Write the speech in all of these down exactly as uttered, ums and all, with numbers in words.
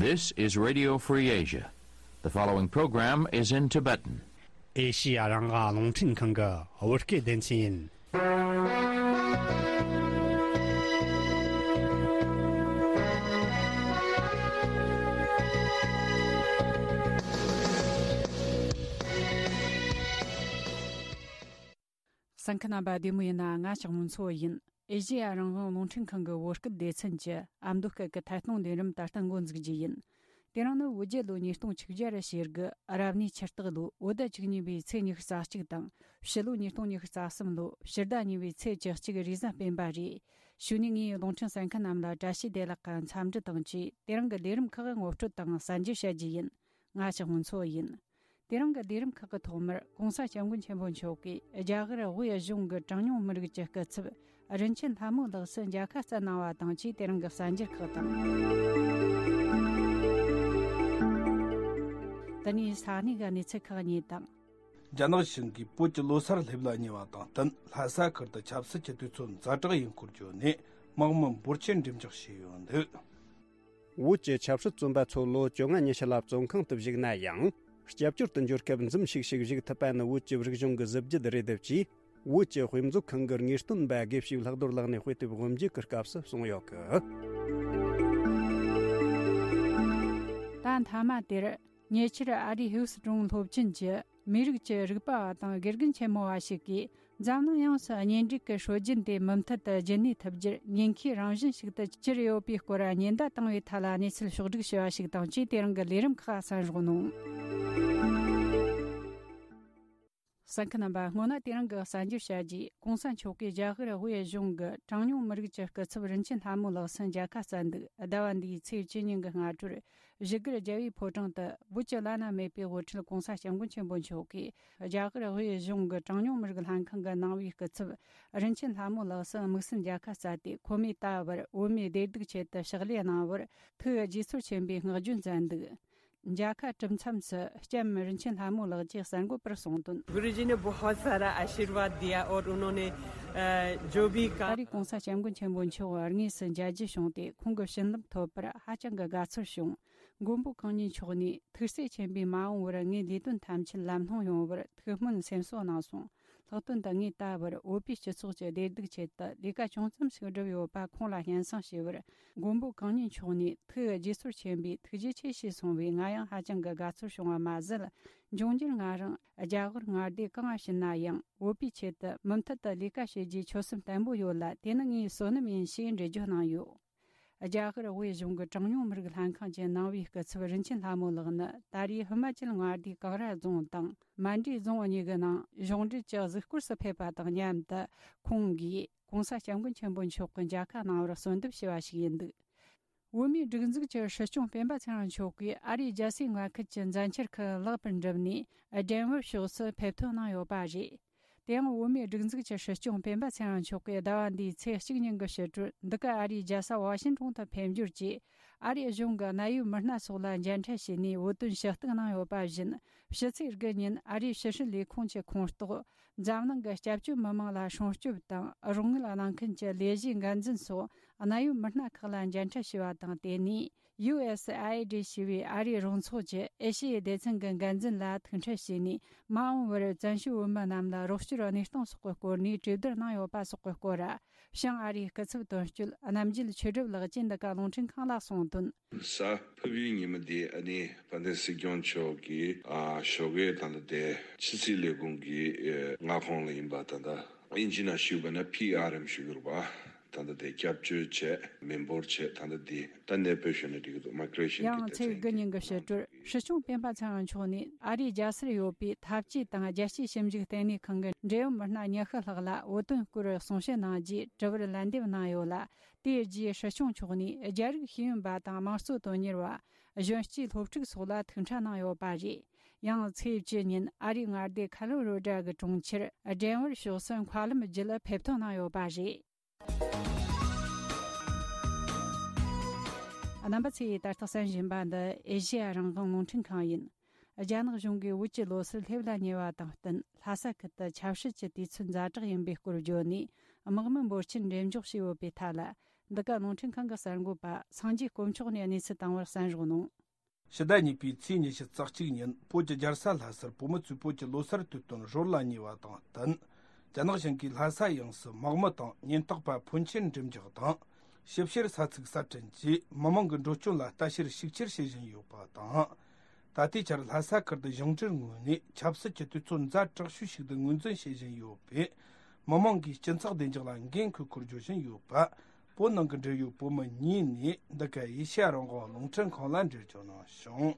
This is Radio Free Asia. The following program is in Tibetan. ཨེ་ཤི་ཡ་རང་དབང་རླུང་འཕྲིན་ཁང་གི་བོད་སྐད་སྡེ་ཚན་ཡིན། གསན་མཁན་རྣམ་པ་བདེ་མོ་ཡིན་ན། ང་ཞག་མུན་ཚོ་ཡིན། ཨེ་ཤེ་ཡ་རང་དབང་རླུང་འཕྲིན་ཁང་གི་བོད་སྐད་སྡེ་ཚན་གྱི་ཨ་མདོ་སྐད་ཀྱི་ཐད་གཏོང་ལས་རིམ་ད་ལྟ་འགོ་འཛུགས་རྒྱུ་ཡིན། དེ་རིང་ནི་བོད་རྒྱལ་ལོ་ཉིས་སྟོང་ཆིག་བརྒྱ་ར་ཞེ་དགུ་རབ་གནས་ཕྱི་སྟག་ལོ་བོད་ཟླ་བཅུ་གཉིས་པའི་ཚེས་ཉི་ཤུ་རྩ་གཅིག་དང་། ཕྱི་ལོ་ཉིས་སྟོང་ཉི་ཤུ་རྩ་གསུམ་ལོ་ཕྱི་ཟླ་གཉིས་པའི་ཚེས་བཅུ་གཅིག་རེས་གཟའ་སྤེན་པ་རེད། ཞུ་ནས་ངས་རླུང་འཕྲིན་གསན་མཁན་རྣམས་ལ་བཀྲ་ཤིས་བདེ་ལེགས་ཀྱི་འཚམས་འདྲི་དང་བཅས། དེ་རིང་གི་ལས་རིམ་ཁག་ངོ་སྤྲོད་དང་གསན་རྒྱུ་བྱ་རྒྱུ་ཡིན། ང་ཞག་མུན་ཚོ་ཡིན། དེ་རིང་གི་ལས་རིམ་ཁག་གི་ཐོག་མར་༸གོང་ས་༸སྐྱབས་མགོན་ཆེན་པོ་མཆོག་གིས་རྒྱ་གར་དབུས་གཞུང་གི་གྲངས་ཉུང་མི་རིགས་ཀྱི་སྐུ་ཚབ་རིན་ཆེན་ལྷ་མོ་ལགས་སུ་མཇལ་ཁ་བསྩལ་གནང་བ་དང་བཅས། དེ་རིང་གི་གསར་འགྱུར་ཁག་དང་། དེ་ནས་ས་གནས་ཀྱི་གནས་ཚུལ་ཁག་གཉིས་དང་། རྒྱ་ནག་གཞུང་གིས་བོད་ཀྱི་ལོ་གསར་སླེབས་ལ་ཉེ་བ་དང་བསྟུན། ལྷ་ས་ཁུལ་དུ་ཆབ་སྲིད་ཀྱི་དུས་ཚོད་ཛ་དྲག་ཡིན་སྐོར་བརྗོད་ནས་དམག་མི་འབོར་ཆེན་འགྲེམས་འཇོག་བྱས་ཡོད་འདུག། བོད་ཀྱི་ཆབ་སྲིད་བཙོན་པ་ཚོ་ལོ་བཅོ་ལྔ་ཉི་ཤུ་ལ་བཙོན་ཁང་དུ་བཞུགས་ན་ཡང་། སྐྱབས་བཅོལ་དུ་འབྱོར་སྐབས་འཛུམ་ཤུགས་ཤིག་བཞུགས་ཐུབ་པ་ནི་བོད་ཀྱི་རིག་གཞུང་གི་གཟི་བརྗིད་རེད། དེ་བཅས་བོད་ཀྱི་དཔེ་མཛོད་ཁང་གི་དངོས་སྟོན་པ་དགེ་བཤེས་ལྷག་རྡོར་ལགས་ནས་དཔེ་དེབ་དབུ་འབྱེད་ཀྱི་སྐབས་སུ་གསུངས་ཡོད་གི། ད་མཐའ་མ་དེར། ཉེ་ཆར་ཨ་རིའི་ཧིའུ་སི་ཀྲུང་སློབ་ཆེན་གྱི་མི་རིགས་ཀྱི་རིག་པ་བ་དང་དགེ་རྒན་ཆེན་མོ་བ་ཞིག་གིས། འཛམ་གླིང་ཡོངས་སུ་གཉེན་སྒྲིག་གི་སྲོལ་རྒྱུན་དེ་མུ་མཐུད་དུ་རྒྱུན་གནས་ཐུབ་རྒྱུར་ཉེན་ཁའི་རང་བཞིན་ཞིག་ཏུ་གྱུར་ཡོད་པའི་སྐོར་ཉེན་བརྡ་བཏང་བའི་ཐད་ལ་གནས་ཚུལ་ཕྱོགས་བསྒྲིགས་བྱས་པ་ཞིག་དང་བཅས། དེ་རིང་གི་ལས་རིམ་ཁག་གསན་རོགས་གནང་། གསན་མཁན་རྣམ་པ། སྔོན་ན་དེ་རིང་གི་གསར་འགྱུར་བྱ་རྒྱུས། ༸གོང་ས་མཆོག་གིས་རྒྱ་གར་དབུས་གཞུང་གི་གྲངས་ཉུང་མི་རིགས་ཀྱི་སྐུ་ཚབ་རིན་ཆེན་ལྷ་མོ་ལགས་སུ་མཇལ་ཁ་བསྩལ་འདུག། ཟླ་བ་འདིའི་ཚེས་བཅུ་ཉིན་གྱི་སྔ་དྲོར། བཞུགས་སྒར་རྒྱལ་བའི་ཕོ་བྲང་དུ་བོད་ཀྱི་བླ་ན་མེད་པའི་དབུ་ཁྲིད་༸གོང་ས་༸སྐྱབས་མགོན་ཆེན་པོ་མཆོག་གིས་རྒྱ་གར་དབུས་གཞུང་གི་གྲངས་ཉུང་མི་རིགས་ལྷན་ཁང་གི་ནང་པའི་སྐུ་ཚབ་རིན་ཆེན་ལྷ་མོ་ལགས་སུ་དམིགས་བསལ་མཇལ་ཁ་བསྩལ་ཏེ། ཁོ་མོས་ད་བར་བོད་མིའི་བདེ་སྡུག་ཆེད་དུ་ཕྱག་ལས་གནང་བར་ཐུགས་དགྱེས་ཚོར་ཆེན་པོས་བསྔགས་བརྗོད་མཛད་འདུག། མཇལ་ཁ་གྲུབ་མཚམས་སུ་ལྕམ་རིན་ཆེན་ལྷ་མོ་ལགས་ཀྱིས་གསར་འགོད་པར་གསུངས་དོན། गुरुजी ने बहुत सारा आशीर्वाद दिया और उन्होंने, अ, जो भी ད་काम རེས་༸གོང་ས་༸སྐྱབས་མགོན་ཆེན་པོ་མཆོག་དངོས་སུ་མཇལ་རྒྱུ་བྱུང་སྟེ། ཁོང་གི་བྱིན་རླབས་ཐོབ་པར་ཧ་ཅང་གི་དགའ་ཚོར་བྱུང་། མགོན་པོ་གང་ཉིད་མཆོག་ནས་ཐུགས་སྲས་ཆེན་པོས་མ་འོངས་པར་ངའི་ལས་དོན་ཐམས་ཅད་ལམ་ལྷོང་ཡོང་བར་ཐུགས་སྨོན་སེམས་གསོ་གནང་སོང་། ལྷག་དོན་དུ་ངས་ད་བར་བོད་པའི་སྤྱི་ཚོགས་ཀྱི་བདེ་སྡུག་ཆེད་དུ་ལས་ཀ་ཅུང་ཙམ་ཞིག་བསྒྲུབས་ཡོད་པ་ཁོང་ལ་སྙན་སེང་ཞུས་པར། མགོན་པོ་གང་ཉིད་མཆོག་ནས་ཐུགས་དགྱེས་ཚོར་ཆེན་པོས་ཐུགས་རྗེ་ཆེ་ཞེས་གསུངས་པས། ང་ཡང་ཧ་ཅང་གི་དགའ་ཚོར་བྱུང་བ་མ་ཟད། འབྱུང་འགྱུར་ང་རང་རྒྱ་གར་མངའ་སྡེ་གང་ཕྱིན་ན་ཡང་བོད་པའི་ཆེད་དུ་མུ་མཐུད་དུ་ལས་ཀ་བྱེད་རྒྱུའི་ཆོད་སེམས་བརྟན་པོ་ཡོད་ལ། དེ་ནི་ངའི་བསོད་ནམས་ཡིན་ཞེས་འགྲེལ་བརྗོད་གནང་ཡོད། རྒྱ་གར་དབུས་གཞུང་གི་གྲངས་ཉུང་མི་རིགས་ལྷན་ཁང་གི་ནང་པའི་སྐུ་ཚབ་རིན་ཆེན་ལྷ་མོ་ལགས་ནི་ད་རེས་ཧི་མ་ཅལ་མངའ་སྡེའི་ཀང་ར་རྫོང་དང་མན་ཌི་རྫོང་གཉིས་ཀྱི་ནང་གཞུང་འབྲེལ་གྱི་གཟིགས་སྐོར་སུ་ཕེབས་པ་དང་མཉམ་དུ། ཁོང་གིས་༸གོང་ས་༸སྐྱབས་མགོན་ཆེན་པོ་མཆོག་གི་མཇལ་ཁ་གནང་བར་གསོལ་འདེབས་ཞུས་པ་ཞིག་ཡིན་འདུག། བོད་མིའི་སྒྲིག་འཛུགས་ཀྱི་སྲིད་སྐྱོང་སྤེན་པ་ཚེ་རིང་མཆོག་གིས་ཨ་རིའི་རྒྱལ་སའི་མངའ་ཁུལ་གྱི་མཛད་འཆར་ཁག་ལེགས་པར་འགྲུབ་ནས། ཌེན་ཝར་ཕྱོགས་སུ་ཕེབས་ཐོན་གནང་ཡོད་པ་རེད། དེ་ཡང་བོད་མིའི་སྒྲིག་འཛུགས་ཀྱི་སྲིད་སྐྱོང་སྤེན་པ་ཚེ་རིང་མཆོག་གིས་ཟླ་བ་འདིའི་ཚེས་གཅིག་ཉིན་གྱི་ཕྱི་དྲོར་འདི་ག་ཨ་རིའི་རྒྱལ་ས་ཝ་ཤིང་ཏོན་དུ་ཕེབས་འབྱོར་གྱིས། ཨ་རིའི་གཞུང་གི་གནད་ཡོད་མི་སྣ་སོགས་ལ་མཇལ་འཕྲད་བྱས་ནས་བོད་དོན་ཞུ་གཏུག་གནང་ཡོད་པ་བཞིན། ཕྱི་ཚེས་དགུ་ཉིན་ཨ་རིའི་ཕྱི་སྲིད་ལས་ཁུངས་ཀྱི་ཁོངས་གཏོགས། འཛམ་གླིང་གི་སྐྱབས་བཅོལ་མི་མང་ལ་སྲུང་སྐྱོབ་དང་རོགས་དངུལ་གནང་མཁན་གྱི་ལས་གཞིའི་འགན་འཛིན་སོགས་གནད་ཡོད་མི་སྣ་ཁག་ལ་མཇལ་འཕྲད་བྱས་པ་དང་། དེ་ནས་ཡུ་ཨེ་སི་ཨའི་ཨེ་ཌི་ཞེས་པའི་ཨ་རིའི་རོགས་ཚོགས་ཀྱི་ཨེ་ཤི་ཡའི་སྡེ་ཚན་གྱི་འགན་འཛིན་ལ་ཐུག་འཕྲད་བྱས་ནས། མ་འོངས་པར་བཙན་བྱོལ་བོད་མི་རྣམས་ལ་རོགས་སྐྱོར་གནས་སྟངས་སོགས་ཀྱི་སྐོར་ནས་གྲོས་བསྡུར་གནང་ཡོད་པ་སོགས་ཀྱི་སྐོར། བྱང་ཨ་རིའི་སྐུ་ཚབ་དོན་གཅོད་རྣམ་རྒྱལ་ཆོས་སྒྲུབ་ལགས་ཀྱིས་འདི་ག་རླུང་འཕྲིན་ཁང་ལ་གསུངས་དོན། གཟའ་ཕུར་བུའི་ཉིན་མོ་འདི་ཨ་ནི་དཔལ་ལྡན་སྲིད་སྐྱོང་མཆོག་གིས་ཨ་ཞོགས་ཀས་ད་ལྟ་དེ་ཕྱི་སྲིད་ལས་ཁུངས་ཀྱི་ཨེ་མངའ་ཁོངས་ལ་ཡིན་པ། ད་ལྟ་དབྱིན་ཇི་ནང་ཞུས་པ་ན་ཕི་ཨར་ཨེམ་ཞུ་གི་རེད་པ། ད་ལྟ་དེ་སྐྱབས་བཅོལ་བྱས་མི་འབོར་བྱས། ད་ལྟ་འདི་ད་གནས་སྤོས་ཞུས་ན་འགྲིག་གི་འདུག། མའི་གྷི་རེ་ཤན་གྱི་ཡང་ཚེས་དགུ་ཉིན་གྱི་ཕྱི་དྲོར་སྲིད་སྐྱོང་སྤེན་པ་ཚེ་རིང་མཆོག་ནས་ཨ་རིའི་རྒྱལ་སར་ཡོད་པའི་འཐབ་ཇུས་དང་རྒྱལ་སྤྱིའི་ཞིབ་འཇུག་ལྟེ་གནས་ཁང་གི་འབྲེལ་ཡོད་མི་སྣ་ཉི་ཤུ་ལྷག་ལ་བོད་དོན་སྐོར་གསུང་བཤད་གནང་རྗེས་དྲི་བར་ལན་འདེབས་གནང་ཡོད་ལ། དེའི་རྗེས་སྲིད་སྐྱོང་མཆོག་ནས་རྒྱ་རིགས་ཤེས་ཡོན་པ་དང་དམངས་གཙོ་དོན་གཉེར་བ། གཞོན་སྐྱེས་སློབ་ཕྲུག་སོགས་ལ་ཐུག་འཕྲད་གནང་ཡོད་པ་རེད། ཡང་ཚེས་བཅུ་ཉིན་ཨ་རིའི་མངའ་སྡེ་ཁ་ལོ་རོ་ཌ་གི་གྲོང་ཁྱེར་ཌེན་ཝར་ཕྱོགས་སུ་མཁའ་ལམ་བརྒྱུད་ཕེབས་ཐོན་གནང་ཡོད་པ་རེད། རྣམ་པ་ཚོས་ད་ལྟ་གསན་བཞིན་པ་འདི་ཨེ་ཤེ་ཡ་རང་དབང་རླུང་འཕྲིན་ཁང་ཡིན། རྒྱ་ནག་གཞུང་གིས་བོད་ཀྱི་ལོ་གསར་སླེབས་ལ་ཉེ་བ་དང་བསྟུན། ལྷ་ས་ཁུལ་དུ་ཆབ་སྲིད་ཀྱི་དུས་ཚོད་ཛ་དྲག་ཡིན་པའི་སྐོར་བརྗོད་ནས། དམག་མི་འབོར་ཆེན་འགྲེམས་འཇོག་བྱས་ཡོད་པའི་ཐད་ལ། འདི་ག་རླུང་འཕྲིན་ཁང་གི་གསར་འགོད་པ་སངས་རྒྱས་དཀོན་མཆོག་ནས་གནས་ཚུལ་བཏང་བར་གསན་རོགས་གནང་། ཕྱི་ཟླ་གཉིས་པའི་ཚེས་ཉི་ཤུ་རྩ་གཅིག་ཉིན་བོད་ཀྱི་རྒྱལ་ས་ལྷ་སར་བོད་མི་ཚོས་བོད་ཀྱི་ལོ་གསར་དུས་སྟོན་རོལ་ལ་ཉེ་བ་དང་བསྟུན། རྒྱ་ནག་གཞུང་གིས་ལྷ་ས་ཡོངས་སུ་དམག་མི་དང་ཉེན་རྟོག་པ་ཕོན་ཆེན་འགྲེམས་འཇོག་དང་། ཞིབ་བཤེར་ས་ཚིགས་གསར་སྐྲུན་གྱིས་མི་མང་གི་འགྲོ་སྐྱོད་ལ་ལྟ་བཤེར་ཤུགས་ཆེར་བྱེད་བཞིན་ཡོད་པ་དང་། ད་ལྟའི་ཆར་ལྷ་ས་ཁུལ་དུ་གཞུང་འབྲེལ་ངོས་ནས་ཆབ་སྲིད་ཀྱི་དུས་ཚོད་ཛ་དྲག་ཤོས་ཤིག་ཏུ་ངོས་འཛིན་བྱེད་བཞིན་ཡོད་པས། མི་མང་གིས་སྤྱི་ཚོགས་བདེ་འཇགས་ལ་འགན་འཁུར་སྐོར་བརྗོད་བཞིན་ཡོད་པ། བོད་ནང་གི་འབྲེལ་ཡོད་བོད་མི་གཉིས་ནས་འདི་ག་ཨེ་ཤ་ཡ་རང་དབང་རླུང་འཕྲིན་ཁང་ལ་འགྲེལ་བརྗོད་གནང་བྱུང་།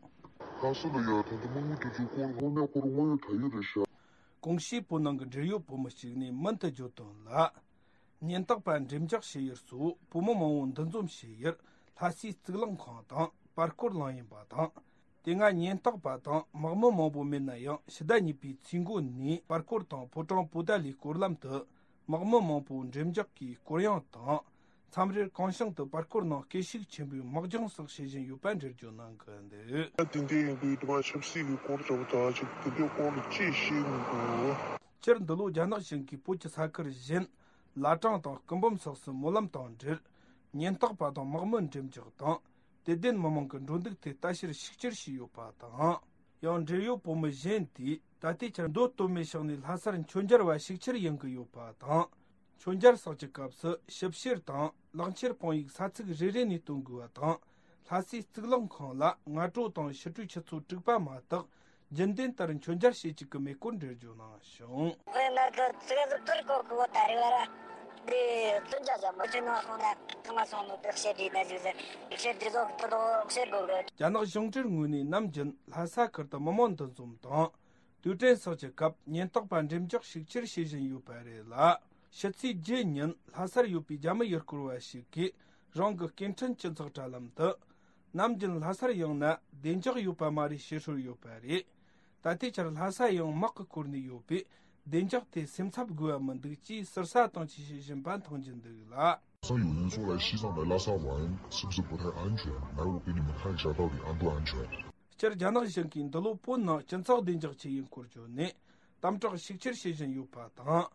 ལྷ་ས་ལ་ཡ་ད་ལྟ་དམག་མི་དེ་ཚོའི་སྐོར་དངོས་གནས་ཁོ་རང་དངོས་ཡོད་ད་ཡོད་རེད་ཤག་གོང་ཞུས་བོད་ནང་གི་འབྲེལ་ཡོད་བོད་མི་གཅིག་ནས་མུ་མཐུད་བརྗོད་དོན་ལ། ཉེན་རྟོག་པ་འགྲེམས་འཇོག་བྱེད་ཡུལ་སོགས་བོད་མི་མང་བོ་འདུ་འཛོམས་བྱེད་ཡུལ་ལྷ་སའི་གཙུག་ལག་ཁང་དང་པར་སྐོར་གླིང་ཡིན་པ་དང་། དེ་སྔ་ཉེན་རྟོག་པ་དང་དམག་མི་མང་པོ་མེད་ན་ཡང་ཕྱི་ཟླ་གཉིས་པའི་ཚེས་འགོ་ནས་པར་སྐོར་དང་ཕོ་བྲང་པོ་ཏཱ་ལའི་སྐོར་ལམ་དུ་དམག་མི་མང་པོ་འགྲེམས་འཇོག་གིས་སྐོར་གཡེང་དང་མཚམས་རེར་གང་བྱུང་དུ་པར་སྐོར་ནང་སྐད་ཤུགས་ཆེན་པོས་དམག་སྦྱོང་སོགས་བྱེད་བཞིན་ཡོད་པ་འགྲེལ་བརྗོད་གནང་གི་འདུག་དེ་འདྲ་ཡིན་དུས་དེ་མ་ཆབ་སྲིད་ཀྱི་སྐོར་ལྟ་བུ་དང་ཅིག་དེ་འདྲའི་སྐོར་ལ་ཅིག་ཤེས་མི་འདུག་སྤྱིར་འདི་ལོ་རྒྱ་ནག་གཞུང་གིས་བོད་ཀྱི་ས་ཁུལ་གཞན་བླ་བྲང་དང་སྐུ་འབུམ་སོགས་སུ་སྨོན་ལམ་དང་འབྲེལ་ཉེན་རྟོག་པ་དང་དམག་མི་འགྲེམས་འཇོག་དང་། དད་ལྡན་མི་མང་གི་འགྲོ་འདུག་ཐད་ལྟ་བཤེར་ཤུགས་ཆེར་བྱས་ཡོད་པ་དང་། ཡང་འབྲེལ་ཡོད་བོད་མི་གཞན་དེས་ད་ལྟའི་ཆར་མདོ་སྟོད་སྨད་ཕྱོགས་ནས་ལྷ་སར་མཆོད་མཇལ་བ་ཤུགས་ཆེར་ཡོང་གི་ཡོད་པ་དང་། མཆོད་མཇལ་སོགས་ཀྱི་སྐབས་སུ་ཞིབ་བཤེར་དང་ལག་འཁྱེར་དཔང་ཡིག་ས་ཚིགས་རེ་རེ་ནས་སྟོན་དགོས་པ་དང་། ལྷ་སའི་གཙུག་ལག་ཁང་ལ་སྔ་དྲོ་དང་ཕྱི་དྲོའི་ཆུ་ཚོད་དྲུག་པ་མ་གཏོགས་རྒྱུན་ལྡན་ལྟར་མཆོད་མཇལ་བྱེད་བཅུག་གི་མེད་སྐོར་འགྲེལ་བརྗོད་གནང་བྱུང་། དཔེར་ན་གི་ཙི་ག་ཟི་ཐུར་གོ་གི་བོ་ད་རེ་བ་ར། དེ་བཙུན་ཅག་ཅག་མི་ཆེ་ནང་སོང་ན་ཐང་ལ་སོང་ནོ་དེ་བཤད་དྲིས་ན་ཟིག་ཟེར། ཤེར་དྲི་ཟོག་ཏུ་དོ་ཤེར་དགོས་གི། རྒྱ་ནག་གཞུང་འབྲེལ་ངོས་ནས་ནམ་རྒྱུན་ལྷ་ས་ཁུལ་དུ་མི་མང་འདུ་འཛོམས་དང་། དུས་དྲན་སོགས་ཀྱི་སྐབས་ཉེན་རྟོག་པ་འགྲེམས་འཇོག་ཤུགས་ཆེར་བྱེད་བཞིན་ཡོད་པ་རེད་ལ། ཕྱི་ཚེས་བརྒྱད་ཉིན་ལྷ་སར་ཡོད་པའི་རྒྱ་མི་ཡུལ་སྐོར་བ་ཞིག་གིས་རང་གི་སྐད་འཕྲིན་སྤྱི་ཚོགས་དྲ་ལམ་དུ། ནམ་རྒྱུན་ལྷ་སར་ཡོང་ན་བདེ་འཇགས་ཡོད་པ་མ་རེད་ཞེས་ཧྲུལ་ཡོད་པ་རེད། ད་ལྟའི་ཆར་ལྷ་ས་ཡང་དམག་གིས་བསྐོར་ནས་ཡོད་པས་བདེ་འཇགས་ཐད་སེམས་འཚབ་དགོས་པ་མི་འདུག་ཅེས་ཟུར་ཟ་དང་བཅས་བཤད་བཞིན་པ་མཐོང་རྒྱུ་འདུག་ལ། 山有人说来西藏的拉萨玩，是不是不太安全？来，我给你们看一下到底安不安全。 སྤྱིར་རྒྱ་ནག་གཞུང་གིས་འདི་ལོ་བོད་ནང་སྤྱི་ཚོགས་བདེ་འཇགས་ཆེད་ཡིན་སྐོར་བརྗོད་ནས་དམ་དྲག་ཤུགས་ཆེར་བྱེད་བཞིན་ཡོད་པ་དང་།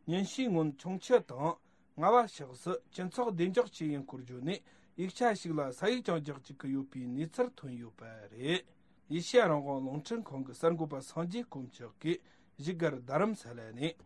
ཉིན་ཤས་སྔོན་ཁྱུང་མཆུ་དང་རྔ་བ་ཕྱོགས་སུ་སྤྱི་ཚོགས་བདེ་འཇགས་ཆེད་ཡིན་སྐོར་བརྗོད་ནས་ཡིག་ཆ་ཞིག་ལ་ས་ཡིག་ཀྱང་རྒྱག་བཅུག་གི་ཡོད་པའི་གནས་ཚུལ་ཐོན་ཡོད་པ་རེད། ཨེ་ཤེ་ཡ་རང་དབང་རླུང་འཕྲིན་ཁང་གི་གསར་འགོད་པ་སངས་རྒྱས་དཀོན་མཆོག་གིས་བཞུགས་སྒར་རྡ་རམ་ས་ལ་ནས།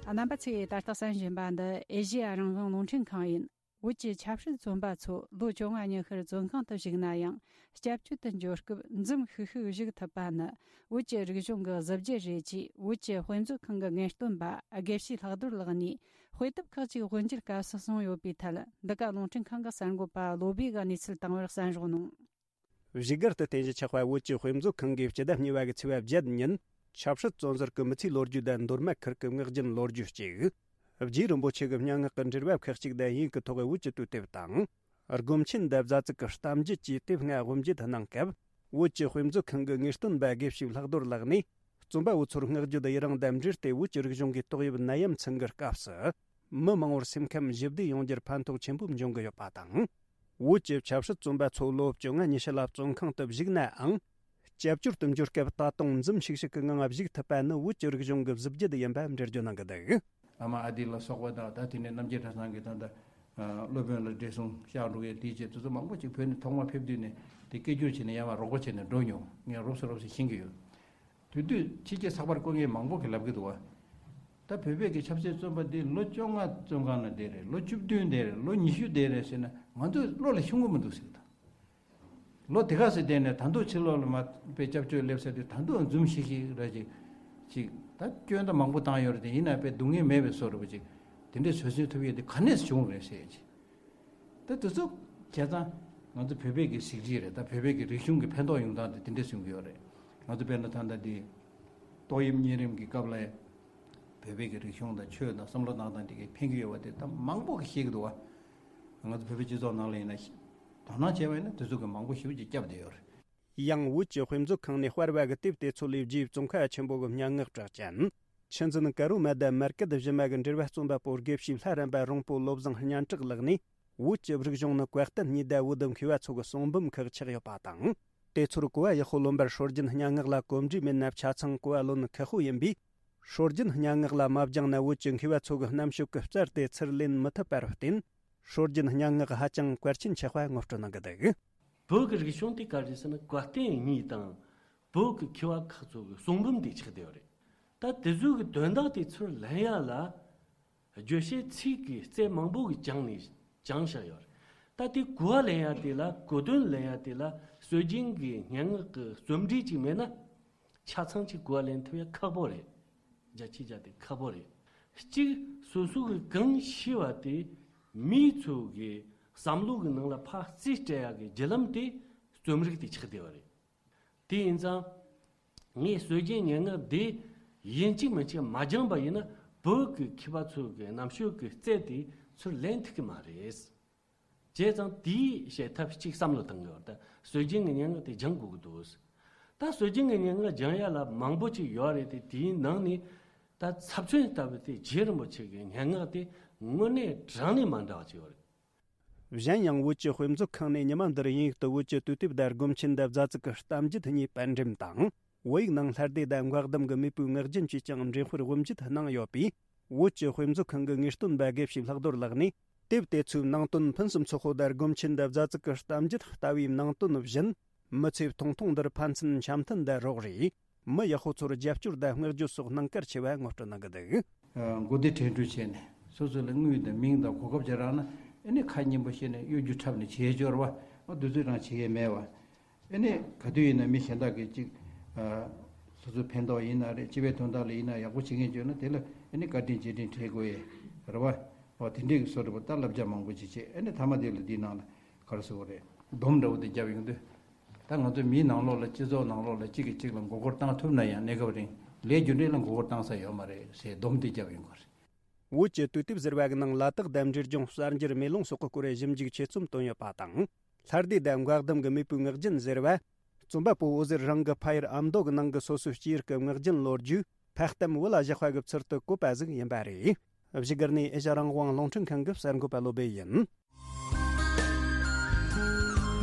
རྣམ་པ་ཚོས་ད་ལྟ་གསན་བཞིན་པ་འདི་ཨེ་ཤེ་ཡ་རང་དབང་རླུང་འཕྲིན་ཁང་ཡིན། བོད་ཀྱི་ཆབ་སྲིད་བཙོན་པ་ཚོ་ལོ་བཅོ་ལྔ་ཉི་ཤུར་བཙོན་ཁང་དུ་བཞུགས་ན་ཡང་། སྐྱབས་བཅོལ་དུ་འབྱོར་སྐབས་འཛུམ་ཤུགས་ཤུགས་བཞུགས་ཐུབ་པ་ནི་བོད་ཀྱི་རིག་གཞུང་གི་གཟི་བརྗིད་རེད་ཅེས་བོད་ཀྱི་དཔེ་མཛོད་ཁང་གི་ངེས་སྟོན་པ་དགེ་བཤེས་ལྷག་རྡོར་ལགས་ནས་དཔེ་དེབ་ཁག་ཅིག་དབུ་འབྱེད་སྐབས་སུ་གསུངས་ཡོད་པའི་ཐད། འདི་ག་རླུང་འཕྲིན་ཁང་གི་གསར་འགོད་པ་བློ་བྷེ་གིས་གནས་ཚུལ་བཏང་བར་གསན་རོགས་གནང་། བཞུགས་སྒར་དུ་རྟེན་གཞི་ཆགས་པ་བོད་ཀྱི་དཔེ་མཛོད་ཁང་གིས་སྤྱི་ཟླ་གཉིས་པ་གི་ཚེས་པ་བརྒྱད་ཉིན་ཆབ་སྲིད་བཙོན་ཟུར་གྱི་མི་ཚེའི་ལོ་རྒྱུས་དང་མདོ་སྨད་ཁུལ་གྱི་ངག་རྒྱུན་ལོ་རྒྱུས་གཅིག་རྗེ་རིན་པོ་ཆེ་གི་སྙན་ངག་གི་འགྲེལ་པ་ཁག་ཅིག་དང་དབྱིན་གྱི་ཐོག་བོད་ཀྱི་དུས་དེབ་དང་། སྒོམ་ཆེན་འདབ་བཟའ་ཚིག་གི་གཏམ་རྒྱུད་ཅེས་དེབ་ལྔ་དབུ་འབྱེད་གནང་སྐབས། བོད་ཀྱི་དཔེ་མཛོད་ཁང་གི་ངེས་སྟོན་པ་དགེ་བཤེས་ལྷག་རྡོར་ལགས་ནས། བཙོན་པ་བོ་ཚོར་བསྔགས་བརྗོད་ཡི་རང་དང་འབྲེལ་ཏེ། བོད་ཀྱི་རིག་གཞུང་གི་ཏོག་དབྱིབས་ནད་ཡམས་ཚང་གི་སྐབས་སུ། མི་མང་བོར་སེམས་ཁམས་ཞི་བདེ་ཡོང་རྒྱུར་ཕན་ཐོགས་ཆེན་པོ་འབྱུང་གི་ཡོད་པ་དང་། བོད་ཀྱི་ཆབ་སྲིད་བཙོན་པ་ཚོ་ལོ་བཅོ་ལྔ་ཉི་ཤུ་ལ་བཙོན་ཁང་དུ་བཞུགས་ནའང་། སྐྱབས་བཅོལ་དུ་འབྱོར་སྐབས་ད་དུང་འཛུམ་ཤིག་ཤིག་གི་ངང་བཞུགས་ཐུབ་པ་ནི་བོད་ཀྱི་རིག་གཞུང་གི་གཟི་བརྗིད་ཡིན་པ་འགྲེལ་བརྗོད་གནང་གི་འདུག་ཨ་མ་ཨ་དི་ལ་སོགས་པ་དང་། ད་དེ་ནས་རྣམ་རྒྱལ་གྲྭ་ཚང་གི་ད་ལྟ་སློབ་དཔོན་ལ་བགྲེས་སོང་ཤག་འགྲོ་ཡས་དེའི་ཆེད་དུ་ཚོ་མང་པོ་ཅིག་བོད་ནས་ཐོག་མ་ཕེབས་དུས་ནས་དེ་སྐད་སྒྱུར་བྱས་ནས་ཡར་མར་རོགས་པ་བྱས་ནས་འགྲོ་མྱོང་། ངས་རོབ་ཙམ་རོབ་ཙམ་ཤེས་ཀྱི་ཡོད། དེ་དུས་ཕྱི་རྒྱལ་ཚགས་པར་བཀོད་མཁན་མང་པོ་གིས་ལབ་ཀྱི་འདུག་བ། ད་བོད་པའི་གི་ཆབ་སྲིད་བཙོན་པ་འདི་ལོ་བཅོ་ལྔ་བཙོན་ཁང་ནང་བསྡད་རེད། ལོ་བཅུ་བདུན་བསྡད་རེད། ལོ་ཉི་ཤུ་བསྡད་རེད་ཟེར་ན་ང་ཚོ་བློ་ལ་ཤོང་གི་མི་འདུག་ཟེར་གི་འདུག་ལོ་དེ་ག་ཚོད་བསྡད་ནས་ད་དུང་ཕྱི་ལོགས་ལ་མར་དཔེ་སྐྱབས་བཅོལ་སླེབས་ས་དེ་ད་དུང་འཛུམ་ཤིག་ཤིག་ར་ཅིག་ཅིག་ད་སྐྱོན་ད་མང་པོ་བཏང་ཡོད་རེད། དེ་ཡིན་ན་དཔེ་སྡུག་བསྔལ་མེད་པའི་བཟོ་འདྲ་པོ་ཅིག་དེ་འདྲས་བཟོ་ཚུལ་ཐུབ་ཡས་དེ་ག་ནས་བྱུང་རེད་ཟེར་ཅིག་ད་དེ་ཚོ་བྱས་ཙང་ང་ཚོ་བོད་པའི་གི་གཟི་བརྗིད་རེད། ད་བོད་པའི་གི་རིག་གཞུང་གི་ཕན་ཐོགས་ཡོང་སྟངས་དེ་དེ་འདྲས་གསུང་གི་ཡོད་རེད། ང་ཚོ་དཔེར་ན་ད་ལྟ་འདི་ཏོག་དབྱིབས་གཉན་རིམས་ཀྱི་སྐབས་ལ་བོད་པའི་གི་རིག་གཞུང་དང་ཆོས་དང་བསམ་བློ་གནང་སྟངས་དེ་གི་ཕན་གི་ཡོད་པ་དེ་ད་མང་པོ་གིས་ཤེས་ཀྱི་འདུག་བ། ང་ཚོ་བོད་པའི་སྤྱི་ཚོགས་ནང་ལ་ཡིན་ན་དོ་སྣང་བྱས་པ་ཡིན་ན་དེ་ཚོ་གི་མང་པོ་ཞེ་པོ་ཅིག་བསྐྱབས་བསྡད་ཡོད་རེད། ཡང་བོད་ཀྱི་དཔེ་མཛོད་ཁང་ནས་སྤར་བ་གི་དེབ་དེ་ཚོ་ལས་རྗེ་བཙོན་ཁང་ཆེན་པོ་གི་སྙན་ངག་གྲགས་ཅན། ཆུ་འཛིན་ཀ་རོ་མ་དང་མར་སྐད་གཞི་མ་གི་འགྲེལ་པ་རྩོམ་པ་པོ་དགེ་བཤེས་ལྷ་རམས་པ་རོང་པོ་བློ་བཟང་སྙན་གྲགས་ལགས་ནས། བོད་ཀྱི་རིག་གཞུང་ནི་བཀའ་བསྟན་གཉིས་དང་བོད་དུ་མཁས་པ་ཚོ་གི་གསུང་འབུམ་ཁག་ཆགས་ཡོད་པ་དང་། དེ་ཚོར་གོ་བ་ཡག་པོ་ལོན་པར་སྲོལ་རྒྱུན་སྙན་ངག་ལ་གོམས་འདྲིས་མེད་ན་ཆ་ཚང་གོ་བ་ལོན་ཁག་པོ་ཡིན་པས། སྲོལ་རྒྱུན་སྙན་ངག་ལ་མ་སྦྱངས་ན། བོད་ཀྱི་མཁས་པ་ཚོ་གི་རྣམ་དཔྱོད་ཀྱི་རྩལ་དེ་ཚུར་ལེན་མི་ཐུབ་པར་བརྟེན། སྲོལ་རྒྱུན་སྙན་ངག་ཧ་ཅང་གལ་ཆེན་ཆགས་པ་ངོ་སྤྲོད་གནང་གི་འདུག་བོད་ཀྱི་རིག་གཞུང་དེ་ག་རེ་ཟེར་ན། གོ་སྟོན་གཉིས་དང་བོད་ཀྱི་མཁས་པ་ཁག་ཚོ་གི་གསུང་འབུམ་དེ་ཆགས་བསྡད་ཡོད་རེད། ད་དེ་ཚོ་གི་དོན་དག་དེ་ཚུར་ལེན་ཡ་ལ། བརྗོད་བྱའི་ཚིག་གི་རྩལ་མང་པོ་གི་སྦྱངས་ནས་སྦྱངས་བཞག་ཡོད་རེད། ད་དེ་གོ་བ་ལེན་ཡ་དེ་ལ། གོ་དོན་ལེན་ཡ་དེ་ལ་སྲོལ་རྒྱུན་གྱི་སྙན་ངག་གི་རྩོམ་སྒྲིག་ཅིག་མེད་ན། ཆ་ཚང་ཅིག་གོ་བ་ལེན་ཐུབ་ཡ་ཁག་པོ་རེད། རྒྱ་ཆེ་རྒྱ་དེ་ཁག་པོ་རེད། གཅིག་སོ་སོ་གི་གང་ཤེས་པ་དེ་མི་ཚོ་གི་བསམ་བློ་གི་ནང་ལ་ཕར་རྩིས་སྤྲད་ཡ་གི་བརྒྱུད་ལམ་དེ་རྩོམ་རིག་དེ་ཆགས་བསྡད་པ་རེད། དེ་ཡིན་ཙང་། ངས་སྲོལ་རྒྱུན་སྙན་ངག་འདི་ཡིན་གཅིག་མིན་གཅིག་མ་སྦྱངས་པ་ཡིན་ན། བོད་ཀྱི་མཁས་པ་ཚོ་གི་རྣམ་དཔྱོད་ཀྱི་རྩལ་དེ་ཚུར་ལེན་ཐུབ་ཀྱི་མ་རེད། བྱས་ཙང་དེའི་བྱེད་ཐབས་གཅིག་བསམ་བློ་བཏང་གི་ཡོད། ད་སྲོལ་རྒྱུན་གྱི་སྙན་ངག་དེ་སྦྱང་དགོས་ཀྱི་འདུག་ད་སྲོལ་རྒྱུན་གྱི་སྙན་ངག་སྦྱང་ཡ་ལ་མང་པོ་ཅིག་ཡོད་རེད་དེ། དེའི་ནང་ནས་ད་ཚབ་མཚོན་ལྟ་བུ་དེ་རྗེ་རིན་པོ་ཆེ་གི་སྙན་ངག་དེ་དངོས་གནས་དྲང་གནས་མ་འདྲ་བ་ཅིག་ཡོད་རེད། གཞན་ཡང་། བོད་ཀྱི་དཔེ་མཛོད་ཁང་ནས་ཉི་མ་འདིར་དབྱིན་ཡིག་ཏུ་བོད་ཀྱི་དུས་དེབ་དང་སྒོམ་ཆེན་དང་རྫ་ཙིག་གི་གཏམ་རྒྱུད་གཉིས་པར་འགྲེམས་དང་། བོད་ཡིག་ནང་ལྷ་སྡེ་དང་འགོག་གདམས་ཀྱི་མེས་པོའི་ངག་རྒྱུན་བཅས་ཀྱང་འགྲེམས་སྤེལ་དབུ་འབྱེད་གནང་ཡོད་པས། བོད་ཀྱི་དཔེ་མཛོད་ཁང་གི་ངེས་སྟོན་པ་དགེ་བཤེས་ལྷག་རྡོར་ལགས་ནས། དེབ་དེ་ཚོའི་ནང་དོན་ཕུན་སུམ་ཚོགས་པོ་དང་། སྒོམ་ཆེན་དང་རྫ་ཙིག་གི་གཏམ་རྒྱུད་ལྟ་བུའི་ནང་དོན་བཞིན། མི་ཚེ་ཐུང་ཐུང་འདིར་ཕན་ཚུན་འཆམ་མཐུན་དང་རོགས་རེས། མི་ཡག་པོ་ཚོར་རྒྱབ་སྐྱོར་དང་བསྔགས་བརྗོད་སོགས་གནང་གལ་ཆེ་བ་ངོ་སྤྲོད་གནང་གི་འདུག་མགོ་བདེ་དྲན་འཕྲུལ་བྱས་ནས། སོ་སོ་ལ་དངུལ་དང་མིང་དང་གོ་སྐབས་ཅིག་རག་ན། ཨེ་ནི་ཁ་སྙན་པོ་བཤད་ནས་གཡོ་སྒྱུ་འཁྲབ་ནས་བྱེད་སྦྱོར་བ། ཨ་དུས་ཚོད་རང་བྱེད་ཡས་མེད་བ། ཨེ་ནི་ག་དུས་ཡིན་ན་མི་གཞན་དག་གིས་ཅིག་ཨ་སོ་སོའི་ཕན་ཐོགས་ཡིན་ན་རེད། སྤྱི་པའི་དོན་དག་ལ་ཡིན་ན་ཡག་པོ་བྱེད་མཁན་བྱུང་ན། དེ་ལ་ཨེ་ནི་བཀའ་དྲིན་རྗེས་དྲན་འཕྲད་དགོས་ཡས་རེད་བ། འོ་དེ་འདྲའི་གི་བཟོ་འདྲ་པོ་ད་བསླབ་བྱ་མང་པོ་ཅིག་བྱས། ཨེ་ནི་མཐའ་མ་དེ་ལ་འདིའི་ནང་ལ་ག་རེ་ཟེར་དགོས་རེད། སྡོམ་འདྲ་པོ་དེ་བརྒྱབ་ཡོང་དུས། ད་ང་ཚོ་མིའི་ནང་ལོགས་ལ། སྤྱི་ཚོགས་ནང་ལོགས་ལ་གཅིག་གིས་གཅིག་ལ་མགོ་སྐོར་བཏང་ཐུབ་ན་ཡང་གནས་སྐབས་རིང་ལས་རྒྱུ་འབྲས་ལ་མགོ་སྐོར་བཏང་ས་ཡོད་མ་རེད་ཟེར་སྡོམ་དེ་བརྒྱབ་ཡོང་གི་རེད། བོད་ཀྱི་དུས་དེབ་ཟེར་བ་གི་ནང་ལ་དྭགས་དང་འབྲས་ལྗོངས་གསར་འགྱུར་མེ་ལོང་སོགས་ཀྱི་སྐོར་ཞིབ་འཇུག་ཆེད་རྩོམ་བཏོན་ཡོད་པ་དང་། ལྷ་སྡེ་དང་འགོག་གདམས་ཀྱི་མེས་པོའི་ངག་རྒྱུན་ཟེར་བ། རྩོམ་པ་པོ་འོད་ཟེར་རང་གི་ཕ་ཡུལ་ཨ་མདོ་གི་ནང་གི་སོ་སོའི་སྐྱེས་ཡུལ་གྱི་ངག་རྒྱུན་ལོ་རྒྱུས་ཕ་གཏམ་བུ་ལ་བཞག་པ་གི་ཚུལ་དུ་བཀོད་པ་ཟིག་ཡིན་པ་རེད། བཞུགས་སྒར་ནས་ཨེ་ཤ་རང་དབང་རླུང་འཕྲིན་ཁང་གི་གསར་འགོད་པ་བློ་སྦེ་ཡིན།